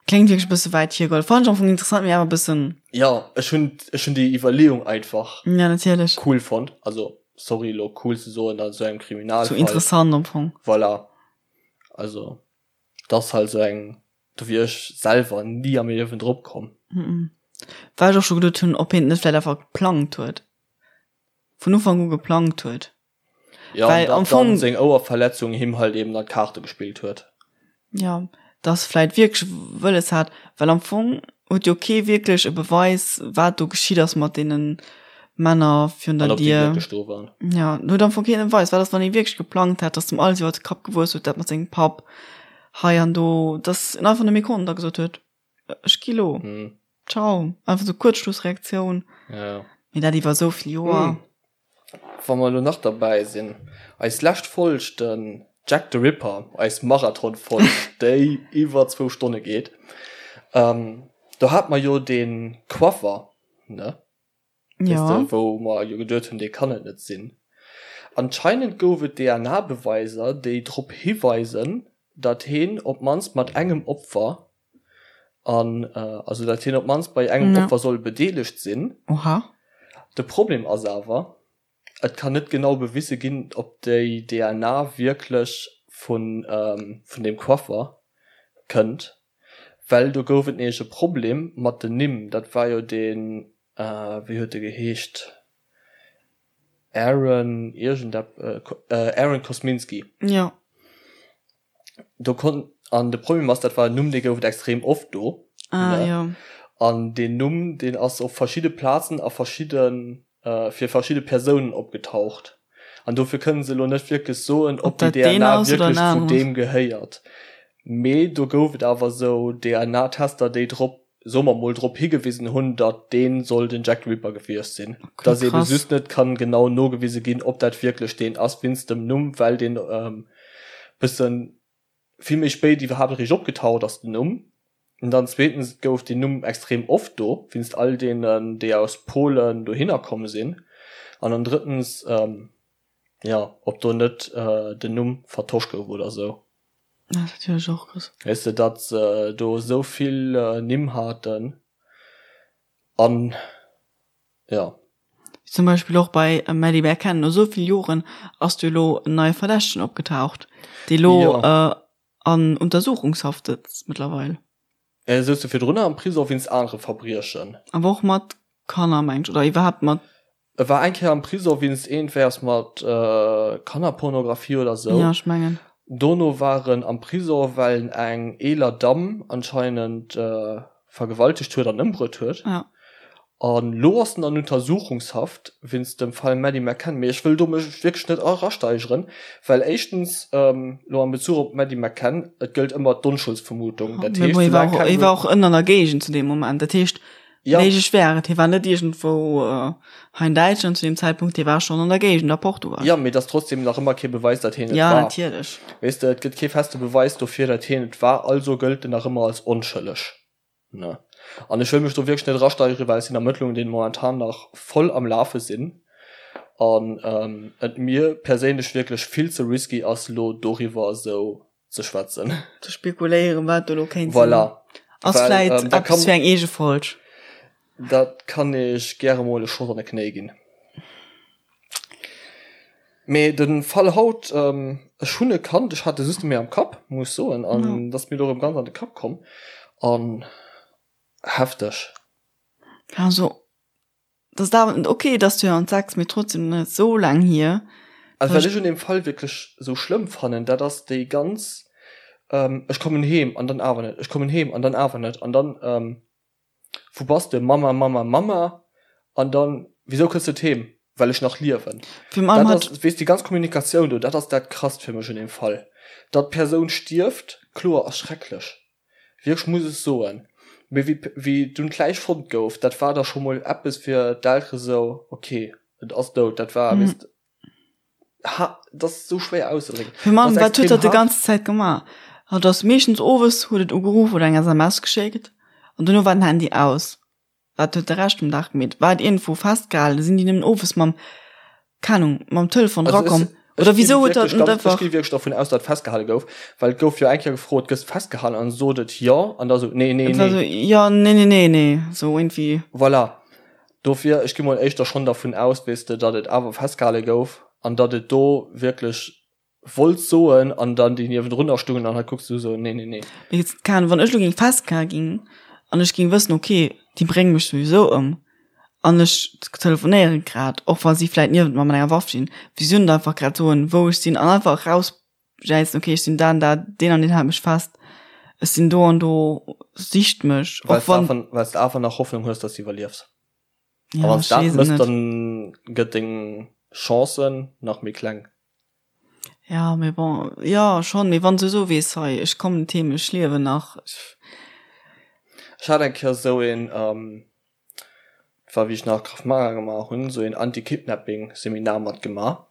B: Kléngt wierklech e bësse wäit hiergeholl. Fannen ech am Fong interessant, mee awer e bëssen.
A: Jo, ech hunn, ech hunn déi Iwwerleeung einfach
B: Ja, natierlech.
A: cool fonnt. Also, sorry elo cool ze soen an esou engem Kriminalfall.
B: Sou interessant am Fong.
A: Voilà. Also, dat ass halt esou eng, do wier ech selwer ni am Liewen drop komm.
B: Well ech och scho geduet hunn, ob hien et net vläicht einfach geplangt huet. Vun Ufank u geplangt huet.
A: Ja, Well am Fong seng Ouerverletzung him halt eben an d'Kaarte gespillt huet.
B: Ja, dass vläit wierklech wëlles hat, well am Fong huet jo kee wierklech e Beweis, wat do geschitt ass mat deene Männer virun der Dier. Do waren. Ja, huet am Fong keen e Beweis. Wat ass, wann ee wierklech geplangt hätt, dass dem alles iwwer de Kapp gewuess huet, dat mat sengem Papp hei an do, dass en einfach net méi konnt a gesot huet, ech gi lo. Hm. Ciao. Einfach sou Kuerzschlussreaktioun.
A: Ja.
B: Mee dat iwwer esou vill Joer.
A: Hm. Wa mer elo nach derbäi sinn, eis lescht Folg, den Jack the Ripper, eis Marathon-Folg, déi iwwer zwou Stonne geet, do hate mer jo dee Coiffer, ne? Weess de, wou mer jo geduet hunn, dee kann et net sinn. Anscheinend gouf et DNA-Beweiser, déi drop hiweisen, datt heen op d'mannst mat engem Opfer an also datt hien op d'mannst bei engem Opfer soll bedeelegt sinn.
B: Oha.
A: De Problem ass awer, et kann net genau bewise ginn, ob déi DNA wierklech vun vun deem Coiffer kënnt, well do gouf et nämlech e Problem mat den Nimm. Dat war jo deen, wéi huet e geheescht, Aaron iergendepp, Aaron Kosminski.
B: Jo.
A: Do kon an de Problem ass, dat war en Numm, dee gouf et extrem oft do.
B: Ah, ne? jo.
A: An deen Numm, deen ass op verschidde Plazen a verschidde fir verschidde Persounen opgetaucht. An dofir kënne se elo net wierklech soen, ob déi DNA wierklech zu deem gehéiert. Mee do gouf et awer esou DNA-Tester, déi drop, soe mer mol, drop higewisen hunn, datt dee soll den Jack the Ripper gewiescht sinn. Okay, Datt eebe just net kann genau nogewise ginn, ob dat wierklech deen ass, wéinst dem Numm, well deen bëssen vill méi spéit iwwerhaapt eréischt opgetaucht ass, den Numm. An dann zweetens gouf deen Numm extrem oft do, wéinst all deenen, déi aus Polen dohinner komm sinn. An dann drëttens, jo, ob do net den Numm vertosch gouf oder sou.
B: Dat ass natierlech och krass.
A: Weess de, datt se do esou vill Nimm haten an, jo.
B: Zum Beispill och bei Maddie McCann, no esou vill Joren ass do elo en neie Verdächtegen opgetaucht, dee lo an Untersuchungshaft sëtzt mëttlerweil.
A: E souz jo virdrunner am Prisong wéinst anere Verbriechen.
B: Awer och mat Kanner, meng ech, oder iwwerhaapt mat.
A: E war eng Kéier am Prisong wéinst iergendwéiers mat Kannerpornografie oder sou.
B: Jo, ech mengen.
A: Dono war en am Prisong, well en eng eeler Damm anscheinend vergewaltegt huet an ëmbruet huet.
B: Ja.
A: An lo ass en an Untersuchungshaft wéinst dem Fall Maddie McCann. Mee ech wëll do mech wierklech net erasteigeren, well éischtens, lo am Bezuch op d'Maddie McCann, et gëllt ëmmer d'Onschuldsvermutung.
B: Dat heescht, soulaang keng. Hie war och ënner an der Géigend zu deem Moment. Dat heescht, méiglech wär et, hie war net iergendwou hei an Däitschland zu deem Zäitpunkt, hie war schonn an der Géigend, a Portugal.
A: Jo, mee et ass trotzdem nach ëmmer kee Beweis, datt hien et
B: war. Ja, natierlech.
A: Weess de, et gëtt kee feste Beweis dofir, datt hien et war, also gëllt en nach ëmmer als onschëlleg. Ne. An ech wëll mech do wierklech net erasteigeren, well et sinn Ermëttlungen, déi momentan nach voll am Lafe sinn. An et mir perséinlech wierklech vill ze risky ass elo doriwwer esou ze schwätzen.
B: Ze spekuléieren, wat do elo kéint
A: sinn. Voilà.
B: Ass vläit eppes fir eng eege Folg.
A: Dat kann ech gäre mol e Schoss an de Knéi ginn. Mee de Fall haut, ech hunn e kannt, ech hat e just net méi am Kapp, muss ech soen, an et ass mir elo erëm ganz an de Kapp komm. An hefteg.
B: Also, dat ass awer, ok, et ass 2006, mee trotzdem net esou laang hier.
A: Also wat ech un deem Fall wierklech esou schlëmm fannen, dat ass déi ganz, ech kommen heem an dann awer net, ech kommen heem an dann awer net an dann, Wou bass de? Mama, Mama, Mama. An dann, Wisou kënns de net heem? Well ech nach liewen. Dat ass, weess, déi ganz Kommunikatioun do, dat ass dat Krasst fir mech un deem Fall. Datt d'Persoun stierft, kloer, ass schrecklech, wierklech, muss ech soen. Mee wéi, wéi dunn d'Läich fonnt gouf, dat war da scho mol eppes fir d'Eltere sou, ok, et ass dout. Dat war, weess de. Ha, dat ass sou schwéier auszedrécken.
B: Fir Mann, wat huet dat de ganze Zäit gemaach? Hat ass meeschtens owes huet et ugeruff oder eng SMS geschéckt an dono war den Handy aus. Wat huet de Rescht vum Dag gemeet? War et iergendwou festgehalen? Sinn déi nëmmen owes mam, keng Ahnung, mam Telefon erakomm? Oder wisou huet dat net
A: einfach. Ech gi wierklech dervun aus, datt et festgehale gouf, well et gouf jo eng Kéier gefrot, gëss festgehalen? An sot et jo an da sou nee, nee,
B: nee. Et war sou jo, nee, nee, nee, nee, sou iergendwéi.
A: Voilà. Dofir, ech gi mol éischter schonn dervun aus, weess de, datt et awer festgehale gouf an datt et do wierklech wollt soen an dann déi niewendrunner stungen an hei kucks du esou, nee, nee, nee.
B: Mee jetzt, keng Ahnung, wann ech elo géing festgehale ginn an ech géing wëssen, okay, déi brénge mech souwisou ëm an ech telefonéiere grad, och wa si vläit niewent mer mat enger Waff stinn, wisou net einfach grad soen, wou ech sinn an einfach erausjäizen, okay, ech sinn da an da, deen an deen hält mech fest, ech sinn do an do, sicht mech,
A: och wann. Well s de awer nach Hoffnung hues, datt s de iwwerliefs. Ja, a wann s dat mëss, dann gëtt deng Chance nach méi kleng.
B: Ja, mee bon, jo schonn, mee wann s du esou weess, hei ech kommen net heem, ech liewen nach.
A: Ech hat eng Kéier esou een, dat war wéi ech nach Krav Maga gemaach hunn, esou een Anti-Kidnapping-Seminar matgemaach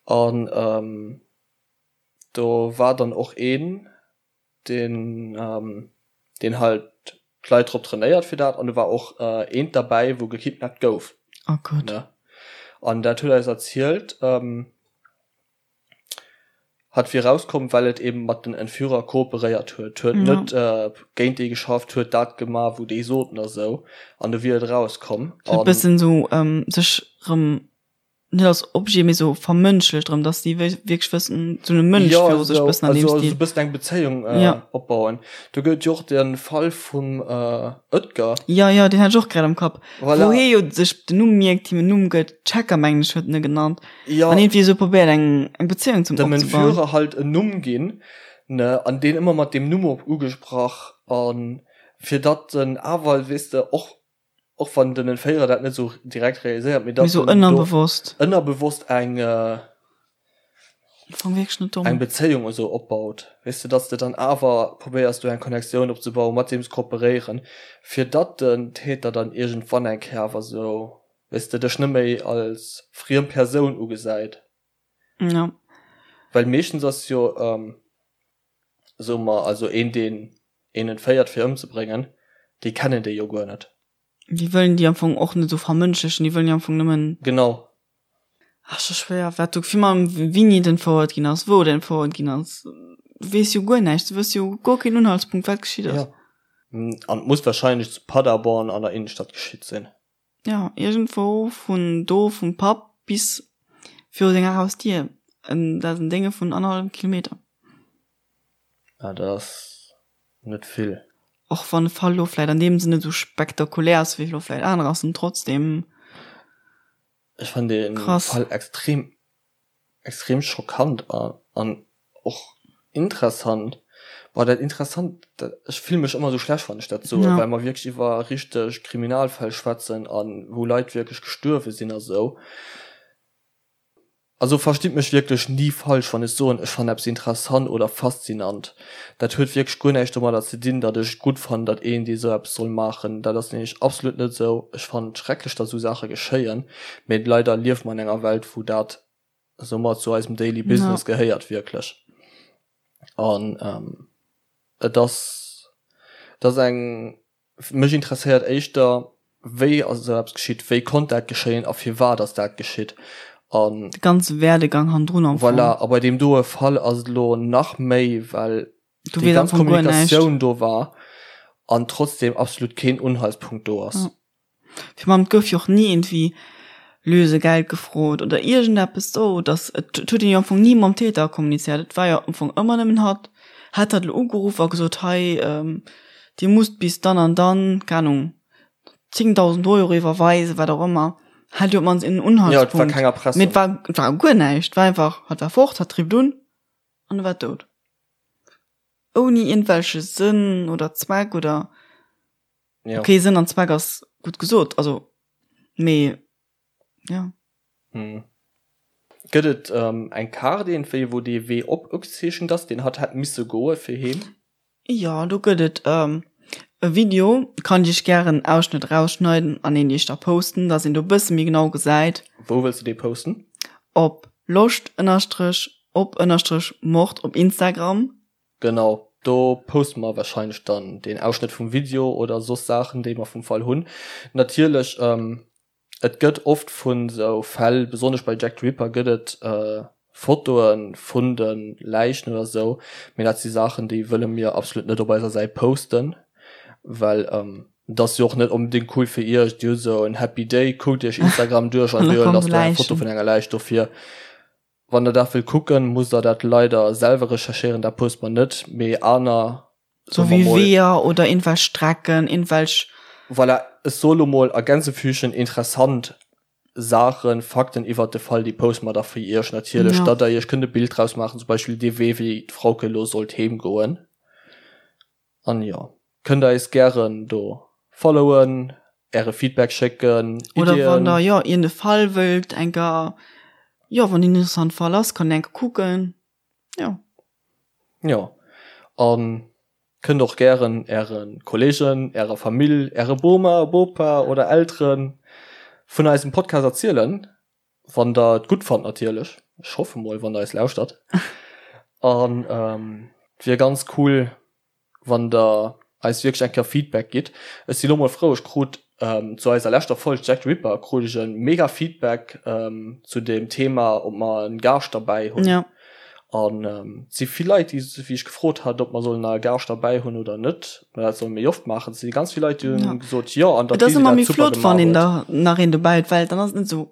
A: an do war dann och een, deen deen halt d'Leit drop trainéiert fir dat an do war och eent derbäi wou gekidnappt gouf.
B: Oh Gott. Ne?
A: An dat huet eis erzielt, hat wier rauskomm well et eben mat den Entführer kooperéiert huet, huet net géint déi geschafft, huet dat gemaach wou déi soten a sou an du wier et rauskomm.
B: Huet bëssen sou sech rëm net als Objet, mee sou vermënschlecht erëm, dass déi wierklech wëssen, sou e Mënsch
A: ja, viru sech bëssen an deem Stil. Also bëssen eng Bezéiung äh, ja. opbauen. Do gëtt jo och den Fall vum äh, Oetker.
B: Ja, ja, deen hat ech och grad am Kapp. Voilà. Wou hie jo sech den Numm mierkt, him en Numm gëtt, Checker mengen ech huet en e genannt. Ja. An iergendwéi sou probéiert eng, eng Bezéiung
A: zum Dem opzebauen. Entführer halt en Numm ginn, ne, an deen ëmmer mat deem Numm op ugesprach an fir datt en awer, weess de, och och wann den Entféierer dat net sou direkt realiséiert,
B: mee datt en ënnerbewosst
A: ënnerbewosst eng eng Bezéiung esou opbaut, weess de, datt s de dann awer probéiers do eng Connectioun opzebauen, mat deem ze kooperéieren, fir datt den Täter dann iergendwann eng Kéier awer sou, weess de, dech net méi als friem Persoun ugesäit.
B: Ja.
A: Well meeschtens ass jo. Soe mer also een deen een entféiert fir ëmzebréngen, déi kennen déi jo guer net.
B: Déi wëllen déi am Fong och net esou vermënschlechen, déi wëllen jo am Fong nëmmen.
A: Genau.
B: Ach scho schwéier, wat do virun allem wéini et entfouert ginn ass, wou et entfouert ginn ass, du weess jo guer näischt, du hues jo guer keen Unhaltspunkt wat geschitt ass.
A: Jo, an et muss wahrscheinlech zu Paderborn an der Innenstadt geschitt sinn.
B: Ja, iergendwou vun do vum Papp bis viru senger Hausdier. Dat ass en Dénge vun annerhallwem Kilometer.
A: Ah, dat ass net vill.
B: Och wann de Fall lo vläit an deem Sënn net esou spektakulär ass wéi lo vläit anerer, ass en trotzdem.
A: Ech fannen dee Fall extrem extrem schockant an och interessant. Boah, dat interessant, dat, ech fille mech ëmmer esou schlecht, wann ech dat soen, well mer wierklech iwwer richteg Kriminalfäll schwätzen a wou Leit wierklech gestuerwe sinn a sou. Also verstitt mech wierklech ni falsch, wann ech soen, ech fannen eppes interessant oder faszinant. Dat huet wierklech guer näischt domadder ze dinn, datt ech et gutt fannen, datt een dee sou eppes soll maachen. Dat ass nämlech absolut net esou. Ech fannen et schrecklech, datt esou Saache geschéien, mee leider liewe mer an enger Welt, wou dat soumat zu eisem Daily Business gehéiert wierklech. An et ass, et ass eng, mech interesséiert éischter. Wéi ass esou eppes geschitt, wéi konnt dat geschéien a firwat ass dat geschitt? An.
B: De ganze Werdegang hannendrun
A: am Fong. Voilà, a bei deem doe Fall ass et elo nach méi, well déi ganz Kommunikatioun do war an trotzdem absolut keen Unhaltspunkt do ass.
B: Virun allem, et gouf jo och ni iergendwéi Lösegeld gefrot oder iergendeppes do, dass, et huet een jo am Fong ni mam Täter kommunizéiert, et war jo am Fong ëmmer nëmmen hatt. Hätt hatt elo ugeruff a gesot, hei, Dir musst bis dann an dann, keng Ahnung, 10.000 Euro iwwerweisen, wat och ëmmer, hätt jo op d'mannst een
A: Unhaltspunkt. Jo, et war keng Erpressung.
B: Mee et war, et war guer näischt, et war einfach, hatt war fort, hatt rifft un an e war dout. Ouni iergendwelche Sënn oder Zweck oder.
A: Ja.
B: Okay, Sënn an Zweck ass gutt gesot, also, mee ja.
A: Hm. Gëtt et ähm, eng Kaart iergendwéi, wou dee Wee op ugezeechent ass, deen hatt hätt misse goe fir heem?
B: Jo, do gëtt et ähm, e Video, kann ech iech gären en Ausschnëtt erausschneiden an een iech da posten, dass een do e bësse méi genau gesäit.
A: Wou wëlls de dee posten?
B: Op loscht ënnerstrech op ënnerstrech mord op Instagram.
A: Genau, do poste mer wahrscheinlech dann deen Ausschnëtt vum Video oder soss Saachen, déi mer vum Fall hunn. Natierlech, et gëtt oft vun esou Fäll, besonnesch bei Jack the Ripper gëtt et Fotoe vun de Läichen oder esou, mee dat si Saachen, déi wëlle mir absolut net op eiser Säit posten, well et ass jo och net onbedéngt cool fir iech, dir hutt esou en happy day, kuckt iech Instagram duerch an op eemol ass do eng Foto vun enger Läich. Dofir Wann der dat wëllt kucken, musst der dat leider selwer recherchéieren, dat poste mer net, mee aner,
B: Sou wéi Weeër oder iergendwelch Strecken, iergendwelch.
A: Voilà, ech soe lo mol a Gänsefüßchen interessant Saachen, Fakten iwwert de Fall, déi poste mer da fir iech natierlech, datt der iech kënnt e Bild draus maachen, zum Beispill dee Wee, wéi d'Frauke lo sollt heem goen. An jo, kënnt der eis gären do followen, äre Feedback schécken,
B: Iddien. Oder wann der jo iergend e Fall wëllt enker, jo wann een interessant Fall ass, kann een enker kucken, jo.
A: Jo, an kënnt och gären äre Kollegen, ärer Famill, äre Boma, Bopa oder Elteren vun eisem Podcast erzielen, wann der et gutt fannt natierlech. Ech hoffe mol, wann der eis lauschtert. An et wier ganz cool, wann der eis wierklech eng Kéier Feedback gitt. Ech si lo mol frou, ech krut zu eiser leschter Folg Jack the Ripper krut ech e mega Feedback zu dem Thema, ob mer en Gaascht derbäi hunn.
B: Ja.
A: An et si vill Leit, déi wéi ech gefrot hat, ob mer sollen nach e Gaascht derbäi hunn oder net, ob mer dat solle méi oft maachen. Et si ganz vill Leit, déi hunn gesot, jo, an
B: datt Et ass d'Lisi ëmmer dat méi super flott, wann gemaach een huet. da nach een dobäi huet, well dann ass et net esou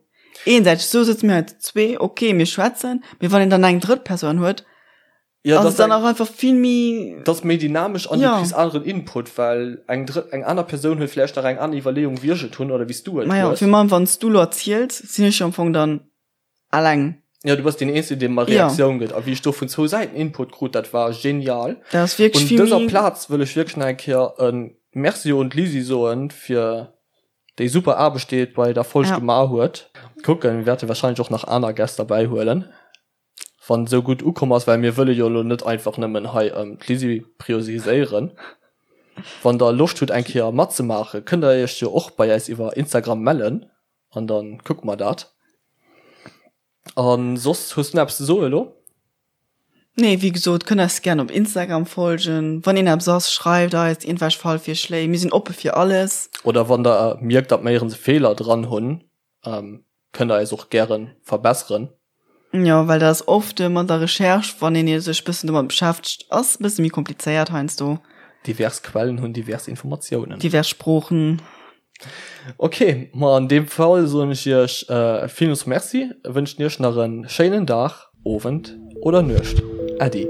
B: eensäiteg. Esou sëtze mir hei zu zwee, okay, mir schwätzen, mee wann een dann eng drëtt Persoun huet,
A: Ja,
B: ass dann auch einfach vill méi.
A: Dat ass méi dynamesch an du kriss aneren Input, well eng drëtt, eng aner Persoun huet vläicht nach eng aner Iwwerleeung wéi ech et hunn oder wéi s du et
B: hues. Majo, fir meng, wann s du lo erziels, sinn ech jo am Fong dann alleng.
A: Ja, du bass deen Eenzegen, dee mer Reaktioun gëtt. A wéi ech do vun zwou Säiten Input krut, dat war genial.
B: Dat ass wierklech
A: vill méi. Un dëser Plaz wëll ech wierklech nach eng Kéier e Merci un d'Lisi soen, fir déi super Aarbecht, déi et bei der Folg gemaach huet. Kucken, mir wäerte wahrscheinlech och nach aner Gäst derbäihuelen. Wann et esou gutt ukomm ass, well mir wëlle jo elo net einfach nëmmen hei d'Lisi priorisiséieren. Wann der Loscht hutt eng Kéier matzemaachen, kënnt der iech jo och bei äis iwwer Instagram mellen an da kucke mer dat. A soss, hues du nach eppes ze soe elo?
B: Nee, wéi gesot, kënnt eis gären op Instagram folgen. Wann een eppes ass, schreift eis iergendwelch Fallvirschléi, mir sinn oppe fir alles.
A: Oder wann der mierkt, datt mer iergends e Feeler dran hunn, Kënnt der eis och gären verbesseren.
B: Jo, well dat ass oft mat der Recherche, wann een sech bëssen domat beschäftegt, ass bësse méi komplizéiert heiansdo.
A: Divers Quellen hunn divers Informatiounen.
B: Divers Sproochen.
A: Ok, ma an deem Fall soen ech iech villmools Merci, wënschen iech nach en schéinen Dag, Owend oder Nuecht. Äddi.